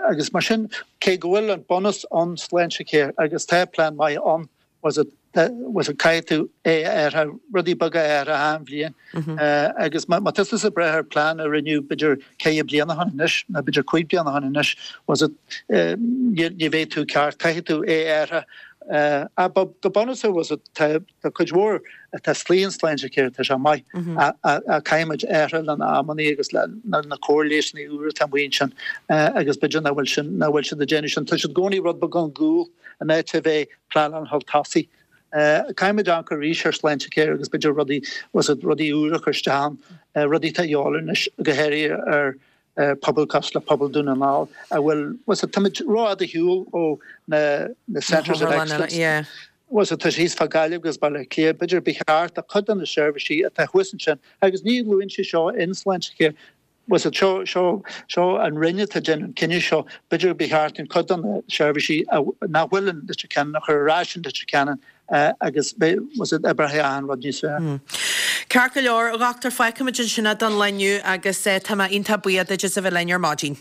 agus mar sin cé go bhfuil an bunús ann Sláintecare agus tá plean maith ann was it was it caithfidh tú é a athrú rudaí beaga a athrú achan bhliain agus má tá tusa ag breith ar plean a rinneadh b'fhéidir ceithre bliana ó shin anois nó b'fhéidir cúig bliana ó shin anois was it ní bheidh tú ceart, caithfidh tú é a athrú. Ach go bunúsach was it tá cuid mhór atá istigh in Sláintecare tá sé maith ach caithfimid athrú le na amannaí agus le na cóir leigheasanna úra atá amuigh ansin agus b'fhéidir nach bhfuil sin nach bhfuil siad ag déanamh sin. Tá siad i gcónaí rud beag chun gcúl in áit a bheith pleanáil chun tosaigh. Caithfimid amharc arís ar Sláintecare agus b'fhéidir rudaí was it rudaí úra a chur isteach ann, rudaí atá a dhíobháil anois go háirithe ar pobal cosúil le pobal Dún na nGall a bhfuil, was it, táimid rófhada ar shiúl ó na na Centres of Excellence. Yeah. Was it, tá sé thíos fá Gaillimh agus Baile Átha Cliath, b'fhéidir ba cheart do chuid de na seirbhísí atá thuas ansin agus ní luann sé seo in Sláintecare, was it, seo, seo, seo an Roinn atá ag déanamh an cinneadh seo, b'fhéidir ba cheart an cuid de na seirbhísí nach bhfuil in Leitir Ceanainn a chur ar ais in Leitir Ceanainn agus was it, oibreoidh achan rud níos fearr. Ceart go leor, a Dhochtúir, fágfaimid ansin é don lá inniu agus tá mé iontach buíoch duit as a bheith linn ar maidin.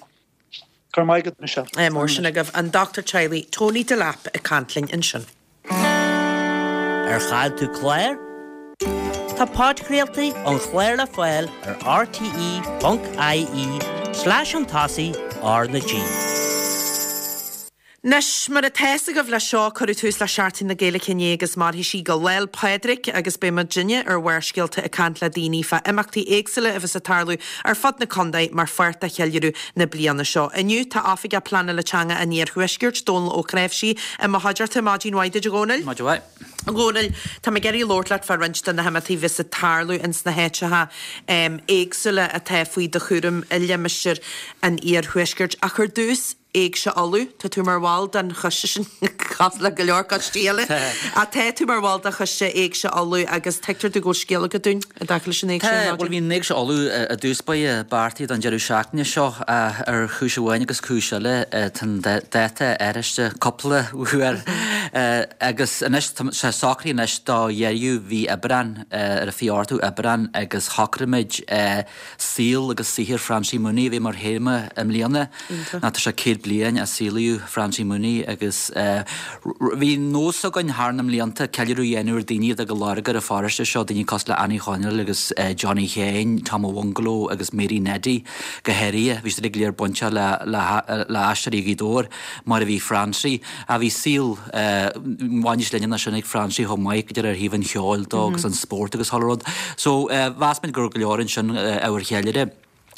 Go raibh maith agat, Michelle. Ádh mór sin agaibh. An Dochtúir Teaghlaigh Tony Delap ag caint linn ansin. Ar chaill tú clár? Tá podchraoltaí an chláir le fáil ar rte.ie slash chun tosaigh R na G. Anois, mar atá fhios agaibh leis seo, cuireadh tús le Seachtain na Gaeilge inné agus mairfidh sí go Lá'l Pádraig agus beidh muidinne ar Bharrscéalta ag caint le daoine fá imeachtaí éagsúla a bheas ag tarlú ar fud na contae mar pháirt de cheiliúradh na bliana seo. Inniu, tá Oifigeach Pleanála Teanga an Iarthuaiscirt, Dónal Ó Cnáimhsí, i mo chuideachta. Maidin mhaith duit, a Dhónaill. Maidin mhaith. A Dhónaill, tá mé ag iarraidh labhairt leat fá roinnt de na himeachtaí a bheas ag tarlú ins na háiteacha éagsúla atá faoi do chúram i limistéar an Iarthuaiscirt. Ach ar dtús, Éigse Uladh, tá tú mar bhall den choiste sin, cosúil le go leor coistí eile, ach tá tú mar bhall de choiste Éigse Uladh agus tuigtear domh go bhfuil scéal agat dúinn i dtaca leis an Éigse Tá, bhuel bhí an Éigse Uladh i dtús báire beartaithe don deireadh seachtaine seo ach ar chúis amháin agus cúis eile tá an dáta athraithe cúpla uair agus anois tá sé socraithe anois do dheireadh mhí Aibreán, ar an 28ú Aibreán agus shocraigh muid Saol agus saothar Francie Mooney a bheith mar théama i mbliana. Ná tá sé 100 bliain ó saolaíodh Francie Mooney agus bhí nós againn thar na mblianta ceiliúradh a dhéanamh ar daoine a d'fhág a lorg ar an pharóiste seo, daoine cosúil le Annie Chonaill agus Johnny Sheáin, Tom a' Bhungaló agus Mary Neddy go háirithe. Bhí siad uilig go léir bainteach le Aisteoirí Ghaoth Dobhair mar a bhí Francie. Ach bhí saol maith níos leithne ná sin ag Francie chomh maith, go deimhin ar thaobh an cheoil dó agus an spórt agus chuile rud. So mheas muid go raibh go leor ansin ábhar cheiliúrtha.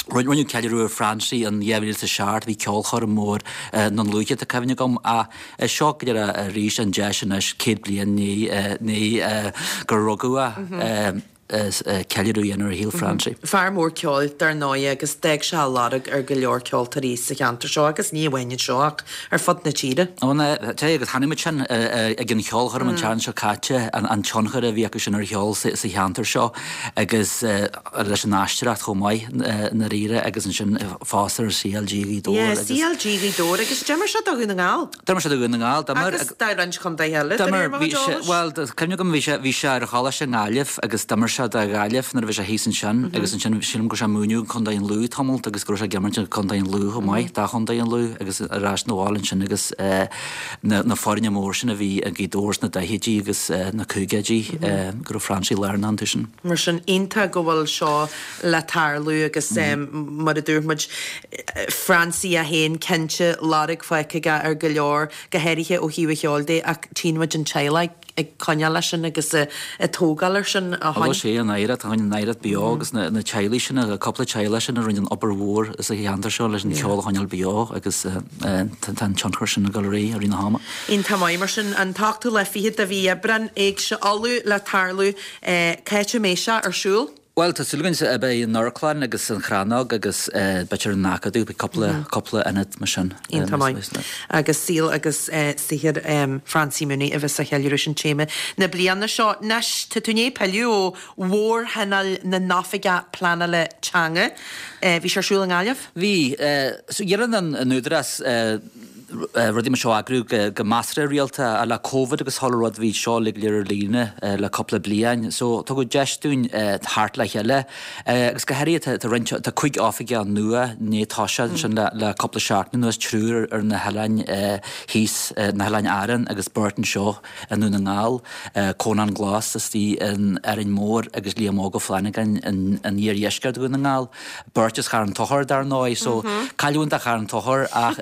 Rinneadh ceiliúradh ar Francie in 2007, bhí ceolchoirm mór i nDún Lúiche tá cuimhne agam ach is seo go deimhin arís an deis anois 100 bliain i ndiaidh gur rugadh é. ceiliúradh a dhéanamh ar shaol Francie. Fear mór ceoil, dar ndóigh, agus d'fhág sé a lorg ar go leor ceoltóirí sa cheantar seo agus ní amháin anseo ach ar fud na tíre. Ó na, tá, agus chonaic muid sin ag an cheolchoirm an tseachtain seo caite, an tionchar a bhí acu sin ar cheol sa cheantar seo agus leis an aisteoireacht chomh maith i ndáiríre agus ansin fosta ar CLG Ghaoth Dobhair agus. Yeah, CLG Ghaoth Dobhair agus d'imir sé do Dhún na nGall. D'imir sé do Dhún na nGall, d'imir. Agus do roinnt contaetha eile, de réir mo chuid eolais. Bhuel, tá cuimhne agam, bhí sé, bhí sé ar choláiste i nGaillimh agus d'imir sé do Ghaillimh nuair a bhí sé thíos ansin agus ansin sílim go raibh sé ag múineadh i gContae an Lú tamalt agus go raibh sé ag imirt i gContae an Lú chomh maith, do Chontae an Lú agus ar ais 'na bhaile ansin agus na foirne mór sin a bhí i nGaoth Dobhair sna daichidí agus na caogaidí go raibh Francie lárnach iontu sin. Mar sin, iontach go bhfuil seo le tarlú agus mar a dúirt muid, Francie é féin cinnte, lorg fágtha aige ar go leor, go háirithe ó thaobh an cheoil de ach tchíonn muid an teaghlach ag coinneáil leis sin agus ag tógáil air sin ó shin. Sé an oidhreacht, tá an oidhreacht beo agus na teaghlaigh sin, an cúpla teaghlach sin a rinne an obair mhór sa cheantar seo leis an cheol a choinneáil beo agus tá an tionchar sin ag dul ar aghaidh i rith na hama. Iontach maith mar sin, an t-ochtú lá fichead de mhí Aibreán, Éigse Uladh le tarlú, cá háit a mbeidh sé ar siúl? Bhuel, tá súil againn beidh an Amharclann agus an Chrannóg agus b'fhéidir an Acadamh, beidh cúpla, cúpla ionad mar sin. Iontach maith. Agus saol agus saothar Francie Mooney a bheas á cheiliúradh, sin téama na bliana seo. Anois, tá tú i ndiaidh pilleadh ó Mhórthionól na nOifigeach Pleanála Teanga. Bhí sé ar siúl i nGaillimh? Bhí. So, déanann an Údarás rudaí mar seo a eagrú go measartha rialta ach le Covid agus chuile rud bhí seo uilig go léir ar líne le cúpla bliain. So tugadh deis dúinn theacht le chéile agus go háirithe tá roinnt, tá 5 oifigeach nua i ndiaidh toiseacht ansin le cúpla seachtain anuas, triúr ar na hoileáin thíos, na hOileáin Árann agus beirt anseo i nDún na nGall, Conán Glas istigh in Árainn Mhór agus Liam Óg Ó Flannagáin in iardheisceart Dhún na nGall. Beirt as Charn Tóchair dar ndóigh, so cailliúint do Charn Tóchair ach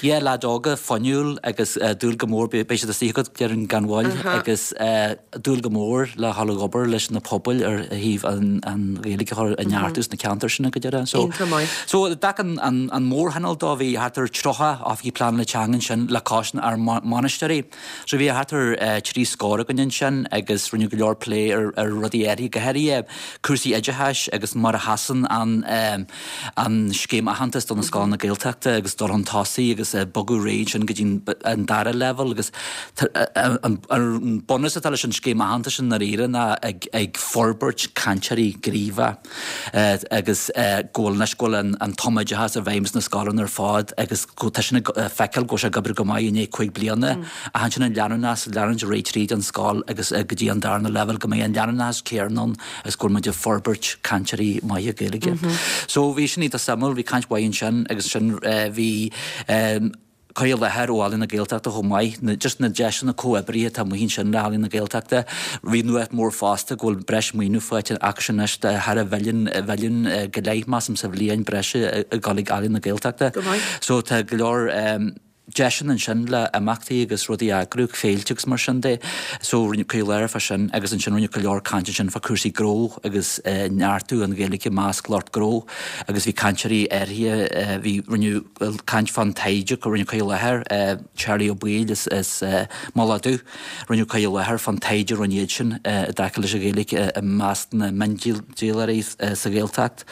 yeah, leaids óga fuinniúil agus dúil go mór, beidh siad istigh agat déarfainn gan mhoill agus dúil go mór le dhul ag obair leis na pobail ar thaobh an Ghaeilge a chur a neartú sna ceantair sin go deireadh. So so i dtaca an mórthionól dó bhí thart ar 30 oifigigh pleanála teanga ansin le cois ár mbainisteoirí. So bhí thart ar thrí scór againn ansin agus rinneadh go leor plé ar ar rudaí áirithe, go háirithe cúrsaí oideachais agus mar a sheasann an an scéim aitheantais do na scoileanna Gaeltachta agus dul chun tosaigh agus bogadh ar aghaidh ansin go dtí an dara leibhéal agus an bunús atá leis an scéim aitheantais i ndáiríre ná ag ag forbairt cainteoirí gníomhacha. agus go bhfuil anois go bhfuil an tumoideachas i bhfeidhm sna scoileanna ar fad agus go tá sin ag feiceáil go bhfuil sé ag oibriú go maith i ndiaidh 5 bliana ach ansin an leanúnachas leanúint ar aghaidh tríd an scoil agus go dtí an darna leibhéal go mbeidh an leanúnachas céanna ann agus go bhfuil muid ag forbairt cainteoirí maithe Gaeilge. So bhí sin iontach suimiúil, bhí caint mhaith ansin agus ansin bhí cur i láthair ó Ealaín na Gaeltachta chomh maith, na, just na deiseanna comhoibrithe atá amuigh ansin le Ealaín na Gaeltachta. Bhí nuacht mór fosta go bhfuil breis maoiniú faighte acusan anois de thar a mhilliún, mhilliún go leith, measaim, sa bhliain breise ag dul ag Ealaín na Gaeltachta. Go maith. So tá go leor. deiseanna ansin le imeachtaí agus rudaí a eagrú, féilte agus mar sin de. So rinneadh cur i láthair fá sin agus ansin rinneadh go leor caint ansin fá cúrsaí gnó agus neartú an Ghaeilge i measc lucht gnó agus bhí cainteoirí áirithe, bhí, rinneadh caint fán taighde, rinneadh cur i láthair, Charlie Ó Baoill as Mullach Dubh. Rinneadh cur i láthair fán taighde a rinne iad sin i dtaca leis an Ghaeilge i measc na miondíolóirí sa Ghaeltacht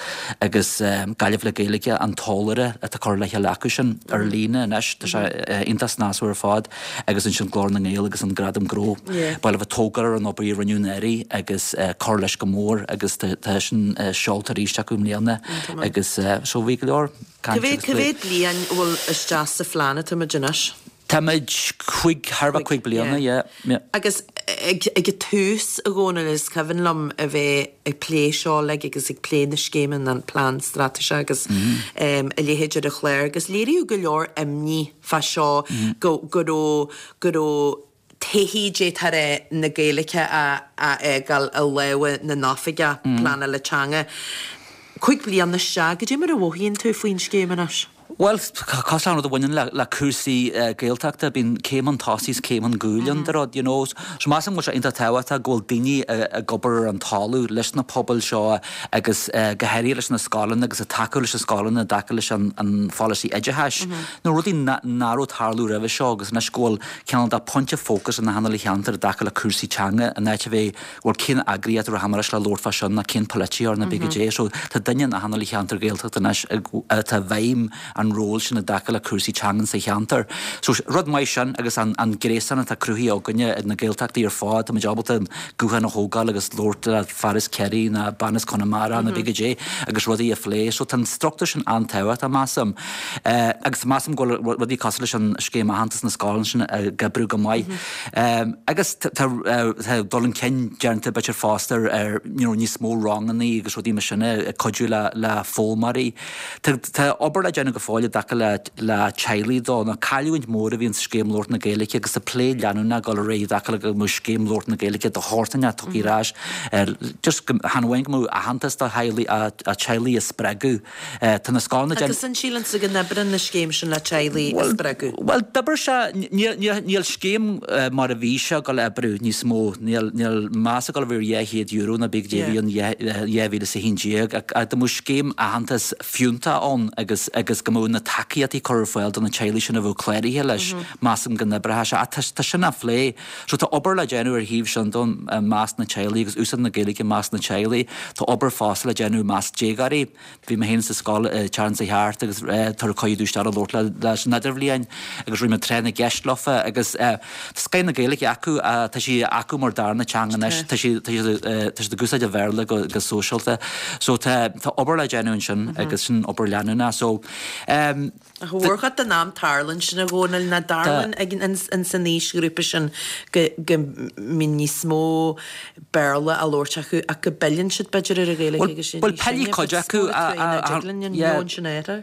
agus Gaillimh le Gaeilge, an t-eolaire atá curtha le chéile acu sin ar líne anois. Tá sé iontach snasmhar ar fad agus ansin Glór na nGael agus an Gradam Gnó. Ba mhaith leo tógáil ar an obair a rinneadh anuraidh agus cur leis go mór agus tá sin seolta arís acu i mbliana agus so bhí go leor cainte agus plé. Cá mhéad bliain a bhfuil isteach sa phlean atá muid anois? Táimid cúig, thar a bheith cúig bliana, yeah, yeah. Agus ag an tús, a Dhónaill, is cuimhin liom a bheith ag plé seo uilig agus ag plé na scéime, an plean straitéiseach agus a leithéid ar an chlár agus léiríodh go leor imní fá seo go go raibh, go raibh taithí d'fhéadfá a rá na Gaeilge á fhágáil i lámha na n-oifigeach pleanála teanga. Cúig bliana isteach, goidé mar a mhothaíonn tú faoin scéim anois? Bhuel, cosúil le rud a bhaineann le cúrsaí Gaeltachta, bíonn céim chun tosaigh is céim chun cúil ann de rud, you know. So measaim go bhfuil sé iontach tábhachtach go bhfuil daoine ag obair ar an talamh leis na pobail seo agus go háirithe leis na scoileanna agus ag tacú leis na scoileanna i dtaca leis an pholasaí oideachais. Nó rudaí nach raibh ag tarlú roimhe seo agus anois go bhfuil cineál de pointe fócais in achan uile cheantar i dtaca le cúrsaí teanga in áit a bheith bhuel cén eagraíocht a rachaidh leis le labhairt fá sin ná cén polaiteoir ná pé goidé. So tá duine in achan uile cheantar Gaeltachta anois atá i bhfeidhm an ról sin i dtaca le cúrsaí teangan sa cheantar. So rud maith sin agus an an gréasán atá cruthaithe againne ag na Gaeltachtaí ar fad, tá muid ábalta an guthán a thógáil agus labhairt le fear as Ciarraí ná bean as Conamara ná pé goidé agus rudaí a phlé. So tá an struchtúr sin an-tábhachtach measaim. Agus measaim go bhfuil rudaí cosúil leis an scéim aitheantas na scoileanna sin ag oibriú go maith. Agus tá dul chun cinn déanta b'fhéidir fosta ar you know níos mó rangannaí agus rudaí mar sin ag cuidiú le le foghlaimeoirí. Tá tá obair le déanamh go fóill i dtaca le le teaghlaigh dó. Nó cailliúint mór a bhí in sa scéim labhairt na Gaeilge agus tá plé leanúnach ag dul ar aghaidh i dtaca le go mbeadh scéim labhairt na Gaeilge de shórt inteacht tugtha ar ais just go chan amháin go mbeadh aitheantas do theaghlaigh ach teaghlaigh a spreagadh Tá na scoileanna déanta. Agus an síleann tú go n-oibreann an scéim sin le teaghlaigh a spreagadh? Bhuel, d'oibir sé. Níl scéim mar a bhí sé ag dul a oibriú níos mó. Níl meas ag dul a bheith ar €200 ná pé goidé a bhí ann 2011. Ach dá mbeadh scéim aitheantas fiúntach ann agus agus go mbeadh na tacaíochtaí curtha ar fáil do na teaghlaigh sin a bheadh cláraithe leis, measaim go n-oibreodh sé. Ach tá sin á phlé. So tá obair le déanamh ar thaobh sin dó i measc na teaghlaigh agus úsáid na Gaeilge i measc na teaghlaigh. Tá obair fosta le déanamh i measc déagóirí. Bhí mé féin sa scoil an tseachtain seo thart agus tabharfaidh cuireadh domh isteach a labhairt leis an idirbhliain agus rinne mé tráth na gceist leofa agus tá scoth na Gaeilge acu, tá sí acu mar darna teanga anois, tá siad tá siad ag úsáid an Bhéarla go go sóisialta. So tá tá obair le déanamh ansin agus sin obair leanúnach. So Ach mórchuid den am tarlaíonn sin a Dhónaill, nach dtarlaíonn ag in san aoisghrúpa sin go go mbíonn níos mó Béarla á labhairt acu ach go bpilleann siad b'fhéidir ar an Ghaeilge agus sin Bhuel pilleann cuid acu a yeah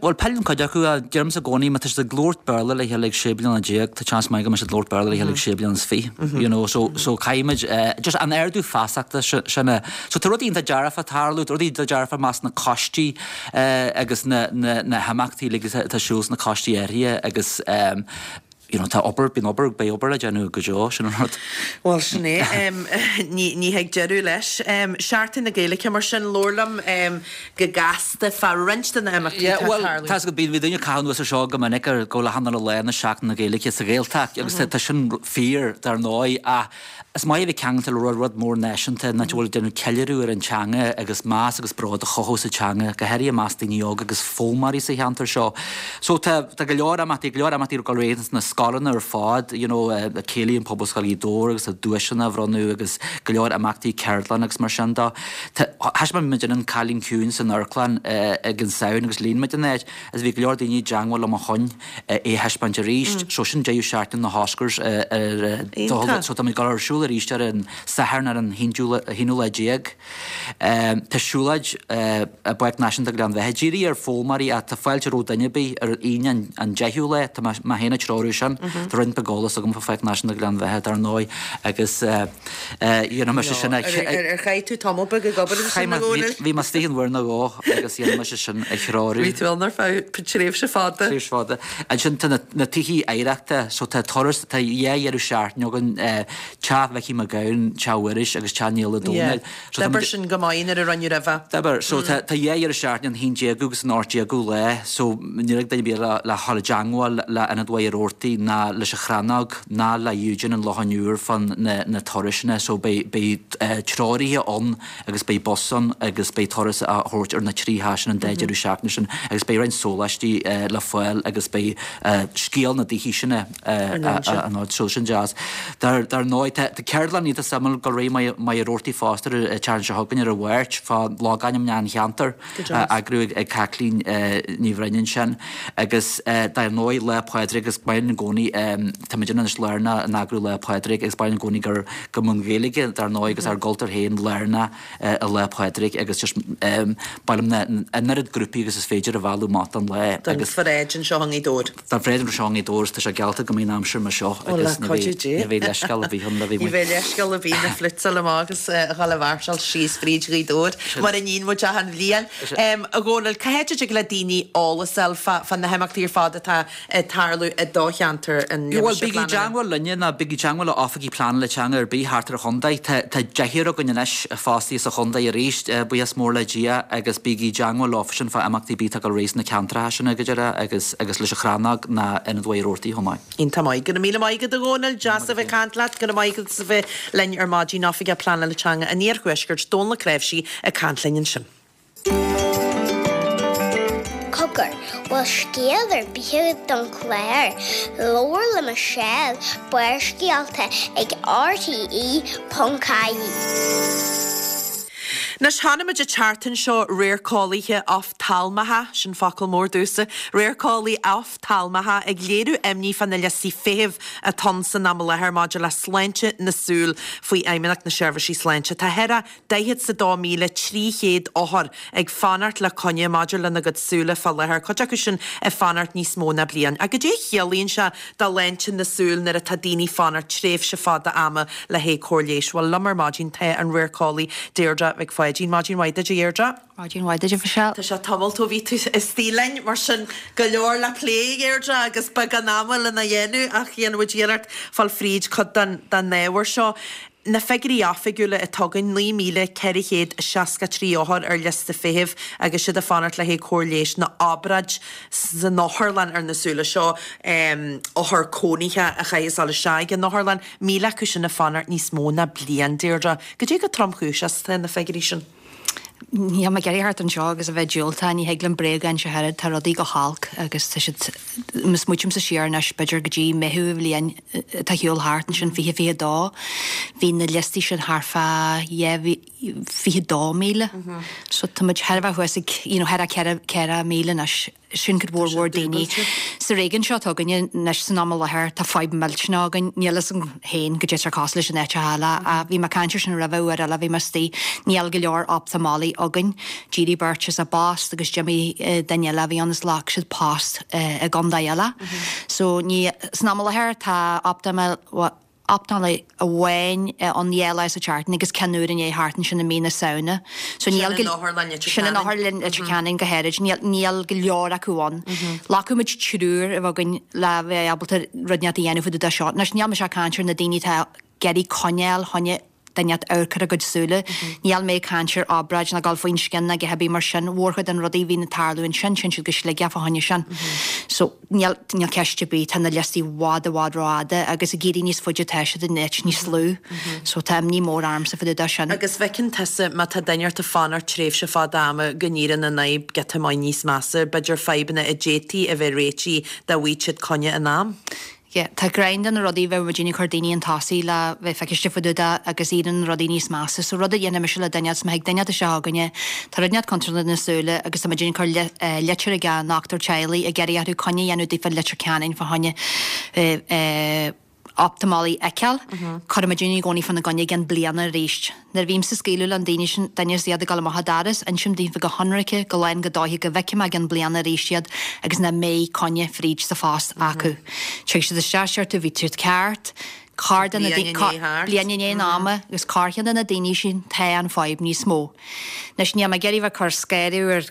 Bhuel pilleann cuid acu a deirimse i gcónaí má tá siad ag labhairt Béarla le chéile ag sé bliana déag tá seans maith go mbeidh siad ag labhairt Béarla le chéile ag sé bliana is fiche you know so so caithfimid just an ardú feasachta sin a so tá rudaí iontach dearfa ag tarlú rudaí iontach dearfa i measc na coistí agus na himeachtaí uilig atá ar siúl sna coistí áirithe agus you know tá obair, bíonn obair, beidh obair le déanamh go deo, sin an rud. Bhuel, sin é. Ní thig deireadh leis. Seachtain na Gaeilge mar sin, labhair liom go gasta fá roinnt de na himeachtaí atá ag tarlú. Bhuel, tá's agat, bíonn daoine ag caitheamh anuas ar seo go minic ar go bhfuil achan uile lá ina Seachtain na Gaeilge sa Ghaeltacht agus tá sin fíor dar ndóigh ach Is maith a bheith ceangailte le rud, rud mór náisiúnta, in áit a bhfuil ag déanamh ceiliúradh ar an teanga agus meas agus bród a chothú sa teanga, go háirithe i measc daoine óga agus foghlaimeoirí sa cheantar seo. So tá, tá go leor imeachtaí, go leor imeachtaí ag dul ar aghaidh sna scoileanna ar fad, you know, Céilí in Pobalscoil Ghaoth Dobhair agus tá duaiseanna á bhronnadh agus go leor imeachtaí, ceardlanna agus mar sin de. Tá, thaispeáin muid An Cailín Ciúin san amharclann ag an Samhain agus líon muid an áit agus bhí go leor daoine i dteangmháil liom ó shoin. é a thaispeáint arís. So sin deireadh seachtaine na hOscars ar so tá muid ag dul ar siúl. siúl arís ar an Satharn ar an haonú lá déag. Tá siúlóid i bPáirc Náisiúnta Ghleann Bheatha dírithe ar foghlaimeoirí ach tá fáilte roimh duine ar bith ar an Aoine an 10ú lá. Tá mé féin ag treorú sin. Tá roinnt beag eolas agam fá Pháirc Náisiúnta Ghleann Bheatha dar ndóigh agus dhéanfaidh mise sin a. Ar chaith tú tamall beag ag obair ansin, a Dhónaill? Bhí mé istigh ann uair nó dhó agus dhéanfaidh mise sin a threorú. Bhí tú ann ar feadh tréimhse fada. Tréimhse fada. Ansin tá na tithe oidhreachta so tá turas, tá dhá dheireadh seachtaine againn, Teach Mhicí Mac Gabhann, Teach Mhuiris agus Teach Nialla Dónaill. So tá D'oibir sin go maith nuair a rinneadh roimhe. D'oibir. So tá tá dhá dheireadh seachtaine, an haon déagú agus an 18 déagú lá, so níl ag duine ar bith le le dhul i dteangmháil le Ionad Mhachaire Rabhartaigh ná leis an Chrannóg ná le Eugene an Locháin Úir fán na na turasanna. So beidh beidh treoraithe ann agus beidh bus ann agus beidh turas á thabhairt ar na trí theach sin an dá deireadh seachtaine sin agus beidh roinnt sóláistí le fáil agus beidh scéal na dtithe sin á n-insint. So sin deas. Dar ndóigh, tá ceardlann iontach suimiúil ag dul ar aghaidh i Machaire Rabhartaigh fosta ar an tseachtain seo chugainn ar an Mháirt fá logainmneacha an cheantair á eagrú ag Caitlín Ní Bhroin ansin agus dar ndóigh Lá Pádraig agus maith linn i gcónaí tá muid anois lárnach in eagrú Lá Pádraig agus ba mhaith linn i gcónaí gur go mbeadh an Ghaeilge dar ndóigh agus ár gcultúr féin lárnach i Lá Pádraig agus just ba mhaith linn an oiread grúpaí agus is féidir a mhealladh amach don lá Don agus pharáid anseo i nGaoth Dobhair. Don pharáid anseo i nGaoth Dobhair agus tá sé geallta go mbeidh an aimsir mar seo agus ní bheidh ní bheidh leithscéal ar bith ann le bheith Ní bheidh leithscéal ar bith na floats a fháil amach agus a dhul a mháirseáil síos fríd Ghaoth Dobhair mar a níonn muid achan bhliain. A Dhónaill, cá háit a dtig le daoine eolas a fháil fá na himeachtaí ar fad atá ag tarlú i do cheantar an Bhuel, bígí i dteangmháil linne nó bígí i dteangmháil le oifigigh pleanála teanga ar bith thart ar an chontae. Tá tá deichniúr againn anois fostaithe sa chontae arís, buíochas mór le Dia, agus bígí i dteangmháil leofa sin fá imeachtaí ar bith atá ag dul ar aghaidh sna ceantracha sin go díreach agus agus leis an Chrannóg ná Ionad Mhachaire Rabhartaigh chomh maith. Iontach maith. Go raibh míle maith agat a Dhónaill, deas a bheith ag caint leat. Go raibh maith agat as a bheith linn ar maidin, Oifigeach Pleanála Teanga an Iarthuaiscirt, Dónal Ó Cnáimhsí ag caint linn ansin. Cogar, bhfuil scéal ar bith agat don chlár? Labhair le Michelle, Barrscéalta ag RTE.ie. Anois, chonaic muid an tseachtain seo radharceolaithe oftalmacha, sin focal mór domhsa, radharceolaí oftalmacha ag léiriú imní fá na liostaí feithimh atá ann san am i láthair maidir le sláinte na súl faoi Fheidhmeannacht na Seirbhísí Sláinte. Tá thar a 42,300 othar ag fanacht le coinne maidir lena gcuid súile fá láthair, cuid acu sin ag fanacht níos mó ná bliain. Ach goidé a chiallaíonn sé do shláinte na súl nuair atá daoine ag fanacht tréimhse fada ama le haghaidh cóir leighis? Bhuel, liom ar maidin tá an radharceolaí Deirdre Mhic Pháidín. Maidin mhaith duit, a Dheirdre. Maidin mhaith duit, a Mhichelle. Tá sé tamalt ó bhí tú istigh linn, mar sin go leor le plé, a Dheirdre, agus beagán ama lena dhéanamh ach dhéanfaidh muid iarracht fáil fríd cuid den ábhar seo. Na figiúirí oifigiúla atá againn, 9,463 othar ar liosta feithimh agus siad ag fanacht le haghaidh cóir leighis nó obráid san otharlann ar na súile seo, othar cónaithe a chaithfeas dul isteach ag an otharlann, 1,000 acu sin ag fanacht níos mó ná bliain, Deirdre. Goidé chomh tromchúiseach is atá na figiúirí sin? Níl mé ag iarraidh theacht anseo agus a bheith diúltach, ní thig liom bréag a inse ach oiread, tá rudaí go holc agus tá siad, má smaoitímse siar anois b'fhéidir go dtí Meitheamh an bhliain atá ar shiúl thart, ansin 2022, bhí na liostaí sin thart fá 22,000. So tá muid thar a bheith thuas ag, you know, thar a 4,000 anois. Sin cuid mhór mhór daoine. Sa réigiún seo atá againne anois san am i láthair tá fadhb millteanach againn. Níl fhios agam féin goidé atá cosúil leis in áiteacha eile ach bhí mé ag caint ar sin roimhe uair eile bhí mé istigh. Níl go leor optamolaí againn. D'éirigh beirt as a bpost agus d'imigh duine eile a bhí ann is ghlac siad post i gcontae eile. So ní, san am i láthair tá optamolaí, optamolaí amháin ann dhá lá sa tseachtain agus ceann úr i ndiaidh theacht ansin i mí na Samhna. So níl go. Sin in Otharlann Leitir Ceanainn. Sin in Otharlann Leitir Ceanainn go háirid. Níl, níl go leor acu ann. Ghlacfadh muid triúr a bheith againn le bheith ábalta rud inteacht a dhéanamh fá dtaobh de seo. Anois níl mise ag caint ar na daoine atá ag iarraidh coinneáil fá choinne duine inteacht amharc ar a gcuid súile. Níl mé ag caint ar obráid ná dul faoin scian ná a dhath ar bith mar sin. Mhórchuid de na rudaí a bhíonn ag tarlú ansin, téann siad go Sligeach fá choinne sin. So. Níl, níl ceist ar bith, tá na liostaí i bhfad, i bhfad rófhada agus ag éirí níos faide atá siad in áit níos lú. So tá imní mór ormsa fá dtaobh de sin. Agus feiceann tusa, má tá duine ort ag fanacht tréimhse fada ama, go n-éiríonn an fhadhb giota maith níos measa, b'fhéidir fadhbanna a d'fhéadfaí a bheith réitithe dá bhfaigheadh siad coinne in am. Yeah, tá greim de na rudaí bheadh muidinne ag cur daoine chun tosaigh le bheith feiciste fá dtaobh de agus éiríonn na rudaí níos measa. So rud a dhéanfaidh mise le duine is má thig duine isteach chugainne, tá rud inteacht contúirteach do na súile agus tá muidinne ag cur litir ag an ndochtúir teaghlaigh ag iarraidh orthu coinne a dhéanamh daofa i Leitir Ceanainn fá choinne. optamolaí a fheiceáil, cuirimid i gcónaí fána gcoinne i gcionn bliana arís. Nuair a bhímse ag scaoileadh le an daoine sin, duine is iad ag dul amach an doras, insim daofa go hionraice, go lán go dóiche go bhfeicfidh mé i gcionn bliana arís iad agus nach mbeidh coinne fríd sa phost acu. Tig siad isteach, deir tú, bhí tú ceart, corr de na Bliain i ndiaidh thart. bliain i ndiaidh an ama agus corrcheann de na daoine sin tá an fadhb níos mó. Anois níl mé ag iarraidh bheith ag cur scanradh ar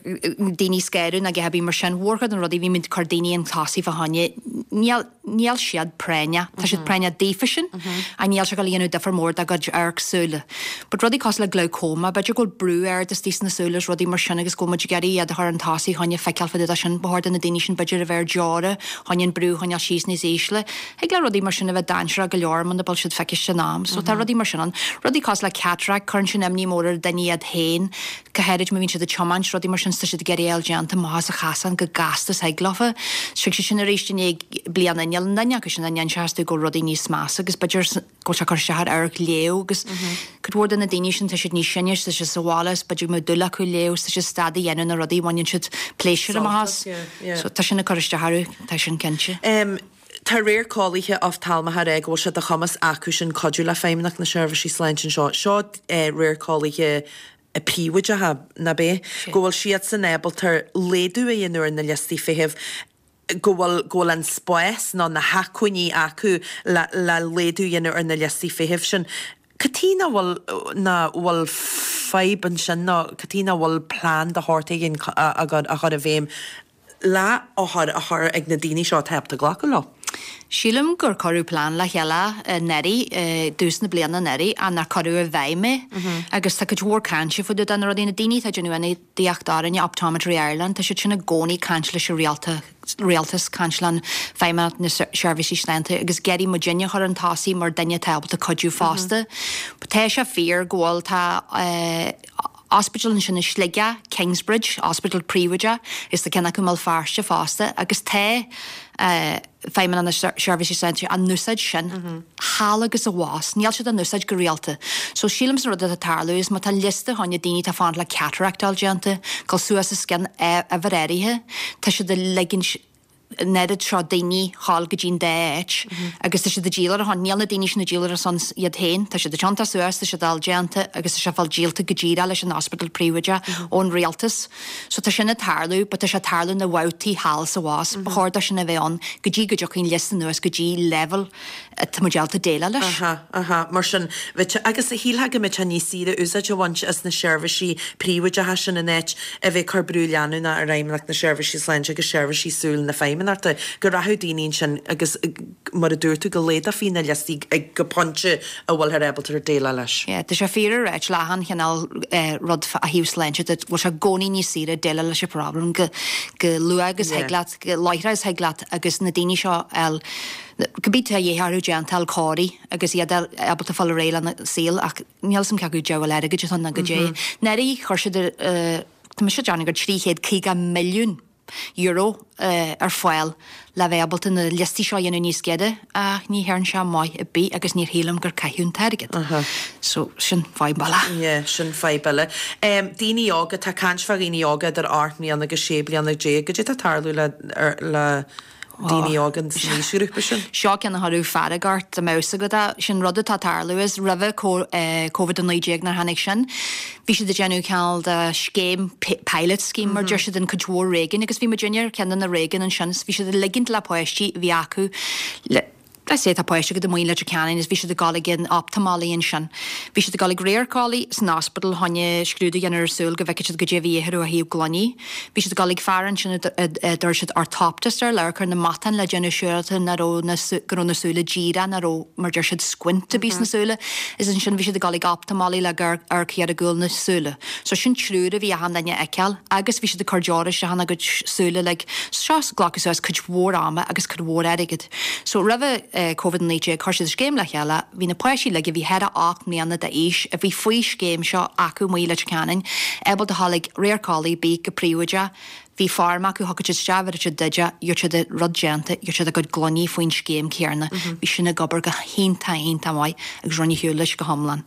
daoine scanradh ná a dhath ar bith mar sin, mhórchuid de na rudaí bhí muid ag cur daoine chun tosaigh fá choinne, níl, Níl siad práinneach. Tá siad práinneach daofa sin ach níl sé ag dul a dhéanamh difear mór dá gcuid amharc súile. But rudaí cosúil le glaucoma, b'fhéidir go bhfuil brú ard istigh sna súile is rudaí mar sin agus go bhfuil muid ag iarraidh iad a chur chun tosaigh choinne feiceáil fá dtaobh de sin. Ba chóir do na daoine sin b'fhéidir a bheith ar deora choinne an brú a choinneáil síos níos ísle. Thig le rudaí mar sin a bheith dainséarach go leor muna bhfuil siad feiciste in am. So tá rudaí mar sin ann. Rudaí cosúil le cataract, cuireann sin imní mór ar duine iad féin. go háirid má bhíonn siad ag tiomáint, rudaí mar sin, 's tá siad ag iarraidh a fháil déanta amach as an chasán go gasta is thig leofa. Tig siad sin arís i ndiaidh bliana, níl aon duine acu sin a n-inseochas tú go bhfuil rudaí níos measa agus b'fhéidir go bhfuil sé ag cur isteach ar amharc léamh agus cuid mhór de na daoine sin tá siad níos sine 's tá siad sa bhaile 's b'fhéidir go mbeadh dúil acu léamh 's tá siad stad a dhéanamh na rudaí a bhaineann siad pléisiúr amach as. So tá sin ag cur isteach orthu, tá sin cinnte. Tá radharceolaithe oftalmacha ag rá go bhfuil sé de chumas acu sin cuidiú le Feidhmeannacht na Seirbhísí Sláinte anseo. Seo radharceolaithe príobháideacha, nach ea? Go bhfuil siadsan ábalta laghdú a dhéanamh ar na liostaí feithimh, go bhfuil, go bhfuil an spás nó na hacmhainní acu le, le laghdú a dhéanamh ar na liostaí feithimh sin. Cad chuige nach bhfuil, nach bhfuil fadhb ansin nó cad chuige nach bhfuil plean de shórt éigin á chur i bhfeidhm le othair a chur ag na daoine seo atá ábalta glacadh leo. Sílim gur cuireadh plean le chéile anuraidh, i dtús na bliana anuraidh, ach nár cuireadh i bhfeidhm é. Agus tá cuid mhór cainte fá dtaobh de na rudaí, na daoine atá ag déanamh ionadaíocht orainne, Optometry Ireland, tá siad sin i gcónaí ag caint leis an rialtas, caint le Feidhmeannacht na Seirbhísí Sláinte agus ag iarraidh muidinne a chur chun tosaigh mar duine atá ábalta cuidiú fosta. Tá sé fíor go bhfuil, tá, Ospidéal ansin i Sligeach, Kingsbridge, ospidéal príobháideach, is tá ceann acu i mBéal Feirste fosta, agus tá Feidhmeannacht na Seirbhísí Sláinte á n-úsáid sin thall agus abhus. Níl siad á n-úsáid go rialta. So sílimse an rud atá ag tarlú is má tá liosta fá choinne daoine atá ag fanacht le cataract a fháil déanta, dul suas os cionn uimhir áirithe, tá siad ag ligint an oiread seo daoine dhul go dtí an dá áit agus tá siad ag díol ar a shon. Níl na daoine sin ag díol ar a son iad féin, tá siad ag tiontú suas, tá siad á fháil déanta agus tá sé ag fáil díolta go díreach leis an ospidéal príobháideach ón rialtas. So tá sin ag tarlú but tá sé ag tarlú na bhabhtaí thall is abhus. Ba chóir dó sin a bheith ann go dtí go dtiocfaidh an liosta anuas go dtí level atá muid ábalta déileáil leis. Aha, aha, mar sin, bheadh sé, agus shílfeá go mbeadh sé níos saoire úsáid a bhaint as na seirbhísí príobháideacha sin in áit a bheith ag cur brú leanúnach ar Fheidhmeannacht na Seirbhísí Sláinte agus seirbhísí súl na Feidhmeannachta, go rachadh daoine ansin agus, mar a dúirt tú, go laghdófaí na liostaí go pointe a bhfuilthear ábalta déileáil leis. Yeah, tá sé fíor a ráit le achan chineál rud ó thaobh sláinte de, bhfuil sé i gcónaí níos saoire déileáil leis an problem go luath agus thig leat, go láithreach is thig leat agus na daoine seo a fháil Cibé tá de dhíth orthu déanta a fháil cóirithe agus iad ábalta fáil ar aghaidh lena saol ach níl 'fhios a'm cé acu diabhal airgid atá ann ná goidé. Anuraidh chuir siad tá mise ag déanamh gur €350 milliún ar fáil le bheith ábalta na liostaí seo a dhéanamh níos giorra ach ní dhearn sé maith ar bith agus níor shílim gur caitheadh an t-airgead. So sin fadhb eile. Yeah, sin fadhb eile. Daoine óga, tá caint fá dhaoine óga idir 8 mbliana agus 16 bliana, goidé atá ag tarlú le le daoine óga san aoisghrúpa sin. Seo ceann a chuirfeadh fearg ort dá mbeadh 'fhios agat é. Sin rud atá ag tarlú is roimhe Covid-19 nuair tháinig sin, bhí siad ag déanamh cineál de scéim, pilot scheme mar deir siad in cuid mhór réigiún agus bhí muidinne ar cheann de na réigiúin ansin is bhí siad ag ligint le páistí a bhí acu le Let's say tá páiste agat amuigh i Leitir Ceanainn is bhí siad ag dul ag an optamolaí ansin. Bhí siad ag dul ag radharceolaí san ospidéal fá choinne scrúdú a dhéanamh ar a súil go bhfeicfeadh siad goidé a bhí orthu ó thaobh gloiní. Bhí siad ag dul ag fear ansin a dtabharfadh siad orthoptist air le amharc ar na matáin le déanamh siúráilte nach raibh na go raibh na súile díreach, nach raibh mar deir siad squint ar bith sna súile. Is ansin bhí siad ag dul ag optamolaí le gur amharc ar gcúl na súile. So sin triúr a bhí achan duine a fheiceáil agus bhí siad ag cur deora isteach ina gcuid súile like. Seo glacadh suas cuid mhór ama agus cuid mhór airgid. So roimhe Covid-19 chuir siad scéim le chéile, bhí na páistí uilig a bhí thar a 8 mbliana d'aois a bhí faoi scéim seo acu amuigh i Leitir Ceanainn ábalta a ghabháil ag radharceolaí ar bith go príobháideach. Bhí form acu, thiocfadh siad isteach, bhéarfadh siad duit é, gheobhadh siad an rud déanta, gheobhadh siad a gcuid gloiní faoin scéim céarna. Bhí sin ag obair go hiontach, iontach maith agus rinne shiúl leis go hiomlán.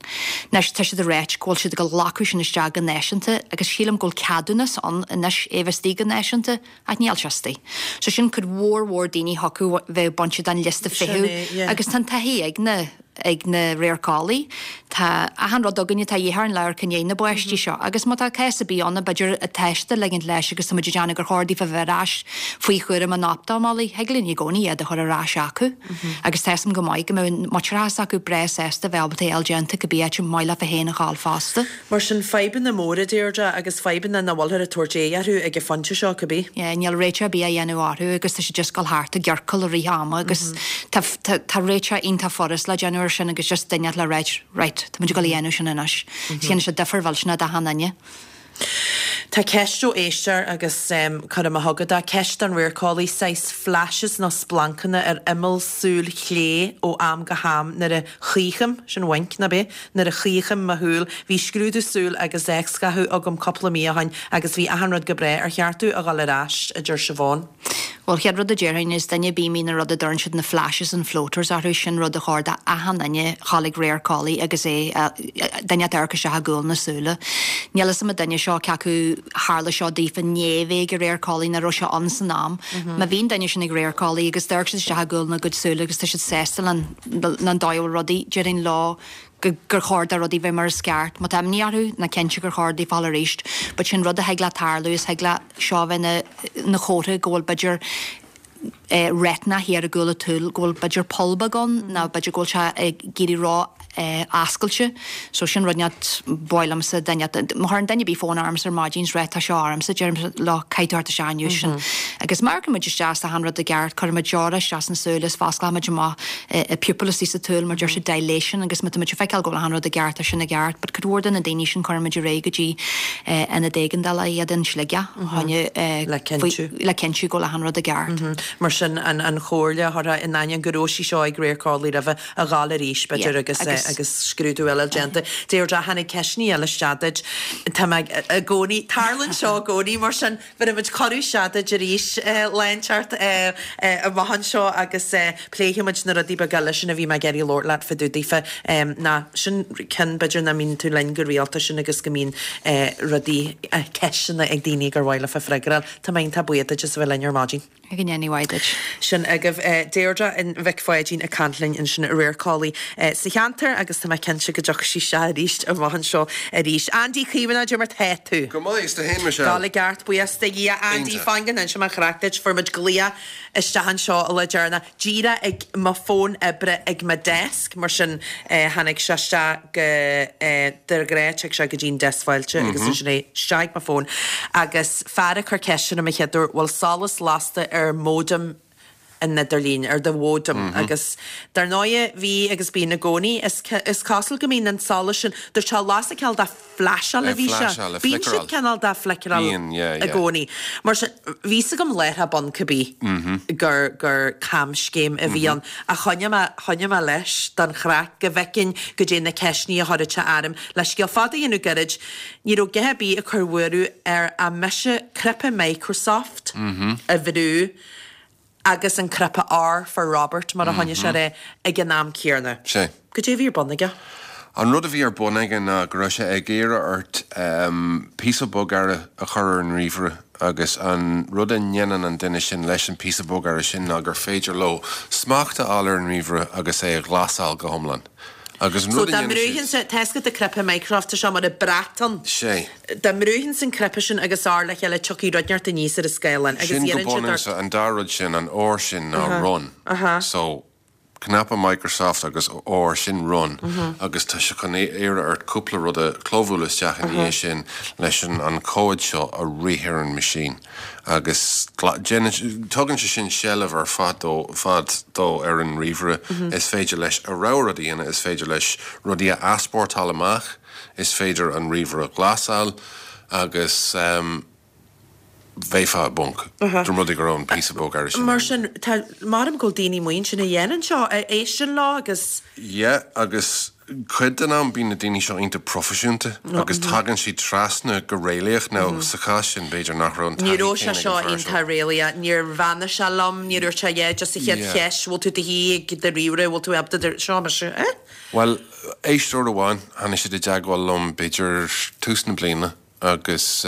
Anois, tá siad ag ráit go bhfuil siad ag glacadh sin isteach go náisiúnta agus sílim go bhfuil ceadúnas ann anois é bheith istigh go náisiúnta ach níl sé istigh. So sin cuid mhór mhór daoine thiocfadh bheith bainte den liosta feithimh agus tá an taithí ag na ag na radharceolaí. Tá achan rud againne atá a dhíth orainn le amharc i ndiaidh na bpáistí seo agus má tá cás ar bith ann b'fhéidir atá siad ag ligint leis agus tá muid ag déanamh gur chóir daofa bheith ar ais faoi chúram an optamolaí, thig linn i gcónaí iad a chur ar ais acu agus tá 'fhios a'm go maith go mbeadh muintearthas acu breá sásta bheith ábalta é a fháil déanta cibé áit ar maith leofa féin a ghabháil fosta. Mar sin, fadhbanna móra, Deirdre, agus fadhbanna nach bhfuilthear ag tabhairt aghaidh orthu ag an phointe seo, cibé. Yeah, níl réiteach ar bith á dhéanamh orthu agus tá siad just ag dul thart i gciorcal i rith ama agus tá, tá, tá réiteach iontach furast le déanamh ar sin agus just duine le ráit, right, tá muid ag dul a dhéanamh sin anois. Déanann sé difear mhillteanach d'achan duine. Tá ceist ó éisteoir agus cuirfidh mé chugat é, ceist don radharceolaí, saghas flashes nó splancanna ar imeall súil chlé ó am go ham nuair a chaochaim, sin wink, nach b'é? Nuair a chaochaim mo shúil. Bhí scrúdú súl agus x-ghathú agam cúpla mí ó shoin agus bhí achan rud go breá. Ar cheart domh a dhul ar ais? a deir Siobhán. Bhuel, chéad rud a déarfainn is duine ar bith a mbíonn an rud a dtuireann siad na flashes and floaters orthu, sin rud a chóir d'achan duine dhul ag radharceolaí agus é, duine ag amharc isteach i gcúl na súile. Níl fhios a'm an duine seo cé acu tharla seo daofa i ndiaidh bheith ag an radharceolaí nó raibh sé ann san am. Má bhíonn duine sin ag radharceolaí agus d'amharc siad isteach i gcúl na gcuid súile agus tá siad sásta len an dóigh a bhfuil rudaí, déarfainn leo gur chóir do rudaí bheith mar is ceart. Má tá imní orthu, ná cinnte gur chóir daofa dhul arís. But sin rud a thig le tarlú, is thig le seo bheith ina ina chomhartha go bhfuil b'fhéidir eh retina thiar i gcúl an tsúil, go bhfuil b'fhéidir poll beag ann nó b'fhéidir go bhfuil sé ag éirí ró eh oscailte. So sin rud inteacht ba mhaith liomsa duine, má chuireann duine ar bith fón ormsa ar maidin is rá tá seo ormsa, deirimse leo caithfidh tú theacht isteach inniu sin. Agus má amharcann muid isteach is tá achan rud i gceart, cuireann muid deora isteach sna súile is fosclaíonn muid amach an pupil istigh sa tsúil mar deir siad dilation agus má tá muid ag feiceáil go bhfuil achan rud i gceart tá sin i gceart but cuid mhór de na daoine sin cuireann muid ar aghaidh go dtí ionad éigeandála iad in Sligeach choinne Le cinntiú. le cinntiú go bhfuil achan rud i gceart. Mar sin an an chomhairle a thabharfá in ainneoin go raibh sí seo ag radharceolaí roimhe a ghabháil arís b'fhéidir agus agus scrúdú eile déanta. Deirdre tháinig ceisteanna eile isteach duit. Tá mé i gcónaí, tarlaíonn seo i gcónaí mar sin Bhéarfaidh muid cuireadh isteach duit arís lá inteacht amach anseo agus pléifidh muid na rudaí beaga eile sin a bhí mé ag iarraidh labhairt leat fá dtaobh daofa. Ná sin ceann b'fhéidir nach mbíonn tú linn go rialta sin agus go mbíonn rudaí, ceisteanna ag daoine gur mhaith leofa freagra a fháil. Tá mé iontach buíoch duit as a bheith linn ar maidin. Go ndéana mhaith duit. Sin agaibh Deirdre Mhic Pháidín ag caint linn ansin, radharceolaí sa cheantar agus tá mé cinnte go dtiocfaidh sí isteach arís amach anseo arís. Andy Caomhánach, cad é mar tá tú? Go maith, is tú fhéin Michelle? Dul i gceart, buíochas do Dhia. Andy, Iontach. fan go n-inseoidh mé an chraic duit, fuair muid glaoch isteach anseo an lá deireanach, díreach ag mo fón oibre ag mo desk, mar sin tháinig sé isteach go, de ghnáth tig sé go dtí'n deasc fáilte agus ansin é isteach ag mo fón agus fear ag cur ceiste orm an chéad uair, bhfuil solas lasta ar modem an idirlín, ar do mhóideam agus dar ndóighe bhí agus bíonn i gcónaí, is is cosúil go mbíonn an solas sin, dúirt sé lasadh cineál de flasháil a Ag bhí sé, flasháil, ag bíonn siad flickeráil. cineál de flickeráil Bíonn, yeah, i yeah. gcónaí. Mar sin, bhí 'fhios agam láithreach bonn cibé gur gur camscéim a bhí ann ach choinnigh mé, choinnigh mé leis don chraic go bhfeicfinn goidé na ceisteanna a chuirfeadh sé orm. Le scéal fada a dhéanamh gairid, Ní raibh githe ar bith ag cur buaireamh air ach mise cnaipe Microsoft a bhrú agus an cnaipe R for Robert, mar a choinnigh sé air, ag an am céanna. Sé. Goidé a bhí ar bun aige? An rud a bhí ar bun aige ná go raibh sé ag iarraidh ort píosa bogearra a chur ar an ríomhaire agus an rud a ndéanann an duine sin leis an píosa bogearra sin ná gur féidir leo smacht a fháil ar an ríomhaire agus é a ghlasáil go hiomlán. Agus an So rud a dá dhéanann mbrúifinnse, siad. tá 'fhios agat an cnaipe Microsoft, tá sé mar an brat ann. Sé. Dá mbrúifinnse an cnaipe sin agus R le chéile tiocfaidh rud inteacht aníos ar an scáileán agus Sin go iarrann siad ort. bunúsach, an dá rud sin, an R sin ná run. So, cnaipe Microsoft agus R, sin run agus tá sé chun iarraidh ort cúpla rud a chlóbhualadh isteach ina dhiaidh sin leis an an comhad seo a rith ar an machine. Agus déanann, tugann sé sin seilbh ar fad dó, fad dó ar an ríomhaire. Is féidir leis a rogha rud a dhéanamh, is féidir leis rudaí a easpórtáil amach, is féidir an ríomhaire a ghlasáil agus bheifeá i bponc dá mba rud é go raibh an píosa bogearra sin Mar sin, tá, maram go bhfuil daoine amuigh ansin a dhéanann seo, a éisteann leo agus. Yeah, agus. Cuid den am bíonn na daoine seo iontach proifisiúnta agus tagann siad trasna go réalaíoch. Now sa chás sin b'fhéidir nach raibh an Ní taithí raibh sé céanna ag seo an fear seo. iontach réalaíoch. Níor bheannaigh sé liom, níor dhúirt sé yeah just an chéad Yeah. cheist, bhfuil tú i do shuí ag do ríomhaire, bhfuil tú ábalta do, seo mise, eh? Bhuel, éisteoir amháin, tháinig siad i dteagmháil liom b'fhéidir tús na bliana agus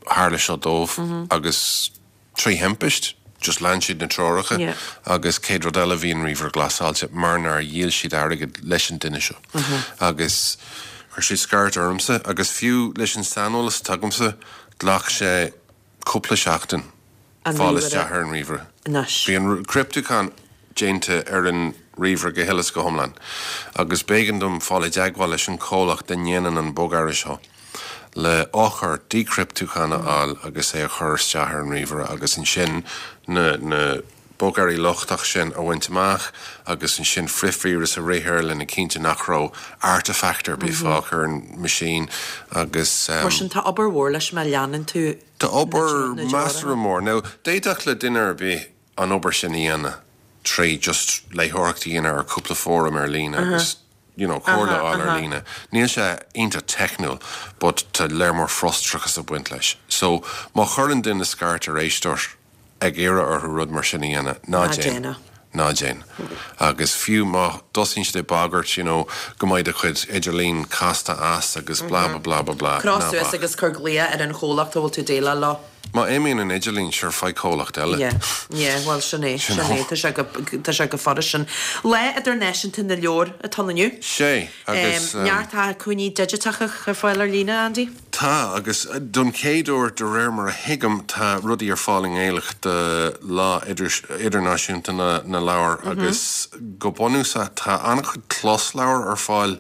tharla seo dóibh agus trí thimpist, just lean siad na treoracha agus céad rud eile bhí an ríomhaire glasáilte mar nár dhíol siad airgead leis an duine seo agus chuir siad scairt ormsa agus fiú leis an saineolas atá agamsa ghlac sé cúpla seachtain fáil isteach ar an ríomhaire. Bhí an criptiúchán déanta ar an ríomhaire go huile is go hiomlán agus b'éigean dom fáil i dteagmháil leis an chomhlacht a ndéanann an bogearra seo le eochair díchriptiúcháin a fháil agus é a chur isteach ar an ríomhaire agus ansin na na bogearraí lochtach sin a bhaint amach agus ansin frithvíreas a rith air lena cinnte nach raibh artifact ar bith fágtha ar an machine agus. Mar sin tá obair mhór leis má leanann tú Tá obair na treoracha. measartha mór. Now d'fhéadfadh le duine ar bith an obair sin a dhéanamh trí just léitheoireacht a dhéanamh ar cúpla fóram ar líne agus you know comhairle a fháil ar líne. Níl sé iontach teicniúil but tá léar mór frustrachas ag baint leis. So má chuireann duine scairt ar éisteoir ag iarraidh orthu rud mar sin a dhéanamh, ná déan. Ná déan. Agus fiú má dtosaíonn siad ag bagairt you know go mbeidh do chuid idirlín casta as agus blah blah blah blah blah, Croch ná suas bac. agus cuir glaoch ar an chomhlacht a bhfuil tú ag déileáil leo. Má imíonn an idirlíon, sure, faigh comhlacht eile. Yeah, yeah, bhuel sin é, sin é, tá sé go, tá sé go furast sin. Lá Idirnáisiúnta na Leabhar atá ann inniu. Sé, agus. Neart acmhainní digiteacha ar fáil ar líne, Andy? Tá, agus don chéad uair, de réir mar a thuigim, tá rudaí ar fáil i nGaeilge do Lá Idirnáisiúnta na Leabhar agus go bunúsach tá an-chuid closleabhar ar fáil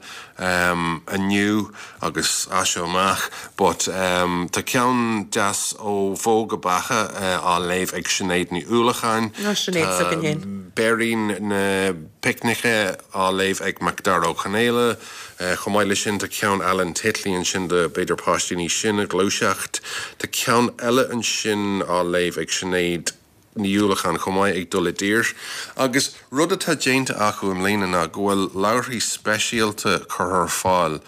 inniu agus as seo amach but tá ceann deas ó Bhó go Beacha á léamh ag Sinéad Ní Uallacháin. Nó Sinéad s'againn féin. Béirín na Picnice á léamh ag Macdara Ó Conaola. Chomh maith leis sin tá ceann Alan Titley ansin do b'fhéidir páistí níos sine, Gluaiseacht. Tá ceann eile ansin á léamh ag Sinéad Ní Uallacháin chomh maith, ag dul i dtír. Agus rud atá déanta acu i mbliana ná go bhfuil leabharthaí speisialta curtha ar fáil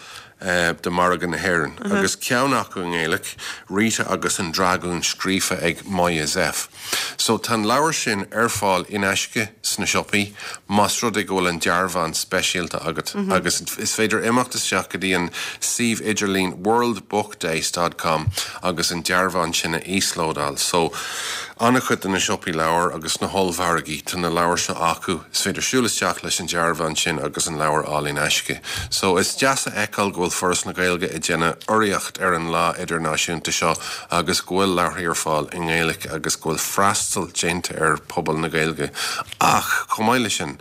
do mhargadh na hÉireann, agus ceann acu i nGaeilge, Rita agus an Dragún scríofa ag Moya Zepf. So tá an leabhar sin ar fáil in aisce sna siopaí más rud é go bhfuil an dearbhán speisialta agat agus is féidir imeacht isteach go dtí an suíomh idirlín worldbookdays dot com agus an dearbhán sin a íoslódáil. So An-chuid de na siopaí leabhar agus na hollmhargaí, tá na leabhair seo acu. Is féidir siúl isteach leis an dearbhán sin agus an leabhar a fháil in aisce. So, is deas a fheiceáil go bhfuil Foras na Gaeilge ag déanamh urraíocht ar an lá idirnáisiúnta seo agus go bhfuil leabharthaí ar fáil i nGaeilge agus go bhfuil freastal déanta ar phobal na Gaeilge. Ach, chomh maith leis sin,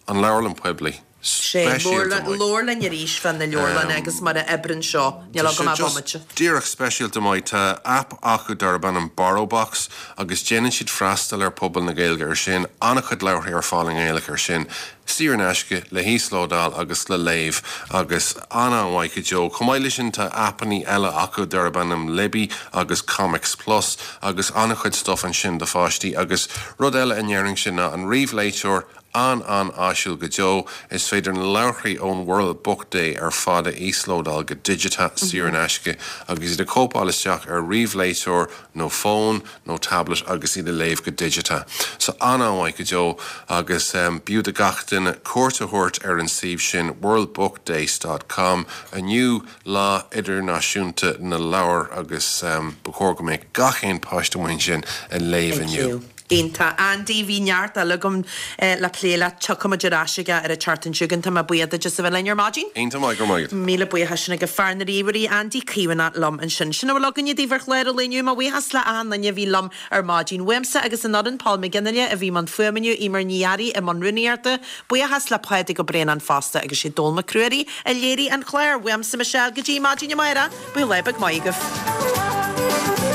an leabharlann poiblí. Sé, Speisialta maith. labhair linn arís fá na leabharlanna agus mar a oibreann seo. Níl Tá agam sé ach just bomaite. díreach speisialta maith. Tá aip acu darb ainm BorrowBox agus déanann siad freastal ar pobal na Gaeilge ar sin. An-chuid leabharthaí ar fáil i nGaeilge ar sin, saor in aisce, le híoslódáil agus le léamh agus an-an-mhaith go deo. Chomh maith leis sin tá aipeanna eile acu darb ainm Libby agus Comics Plus agus an-chuid stuff ansin do pháistí agus rud eile a ndéarfainnse ná an ríomhléiteoir An-an-áisiúil go deo. Is féidir na leabharthaí ón World Book Day ar fad a íoslódáil go digiteach saor in aisce agus iad a chóipeáil isteach ar ríomhléiteoir nó fón nó tablet agus iad a léamh go digiteach. So an-an-mhaith go deo agus b'fhiú do gach duine cuairt a thabhairt ar an suíomh sin worldbookdays dot com inniu, Lá Idirnáisiúnta na Leabhar agus ba chóir go mbeadh gach aon páiste amuigh ansin ag léamh inniu. Iontach. Andy, bhí neart eile agam le plé leat. Tiocfaimid ar ais aige ar an tseachtain seo chugainn. Tá mé buíoch duit as a bheith linn ar maidin. Iontach maith, go raibh maith agat. Míle buíochas sin ag fear na ríomhairí, Andy Caomhánach liom ansin. Sin a bhfuil againne daoibh ar chlár an lae inniu. Mo bhuíochas le achan duine a bhí liom ar maidin. Uaimse agus an fhoireann, Paul McGinley a bhí i mbun fuaime inniu, Eimear Ní Fhearraigh i mbun rúnaíochta, Buíochas le Pádraig Ó Braonáin fosta agus sé Dónall Mac Ruairí a léirigh an clár. Uaimse Michelle go dtí maidin amárach, bíodh lá beag maith agaibh.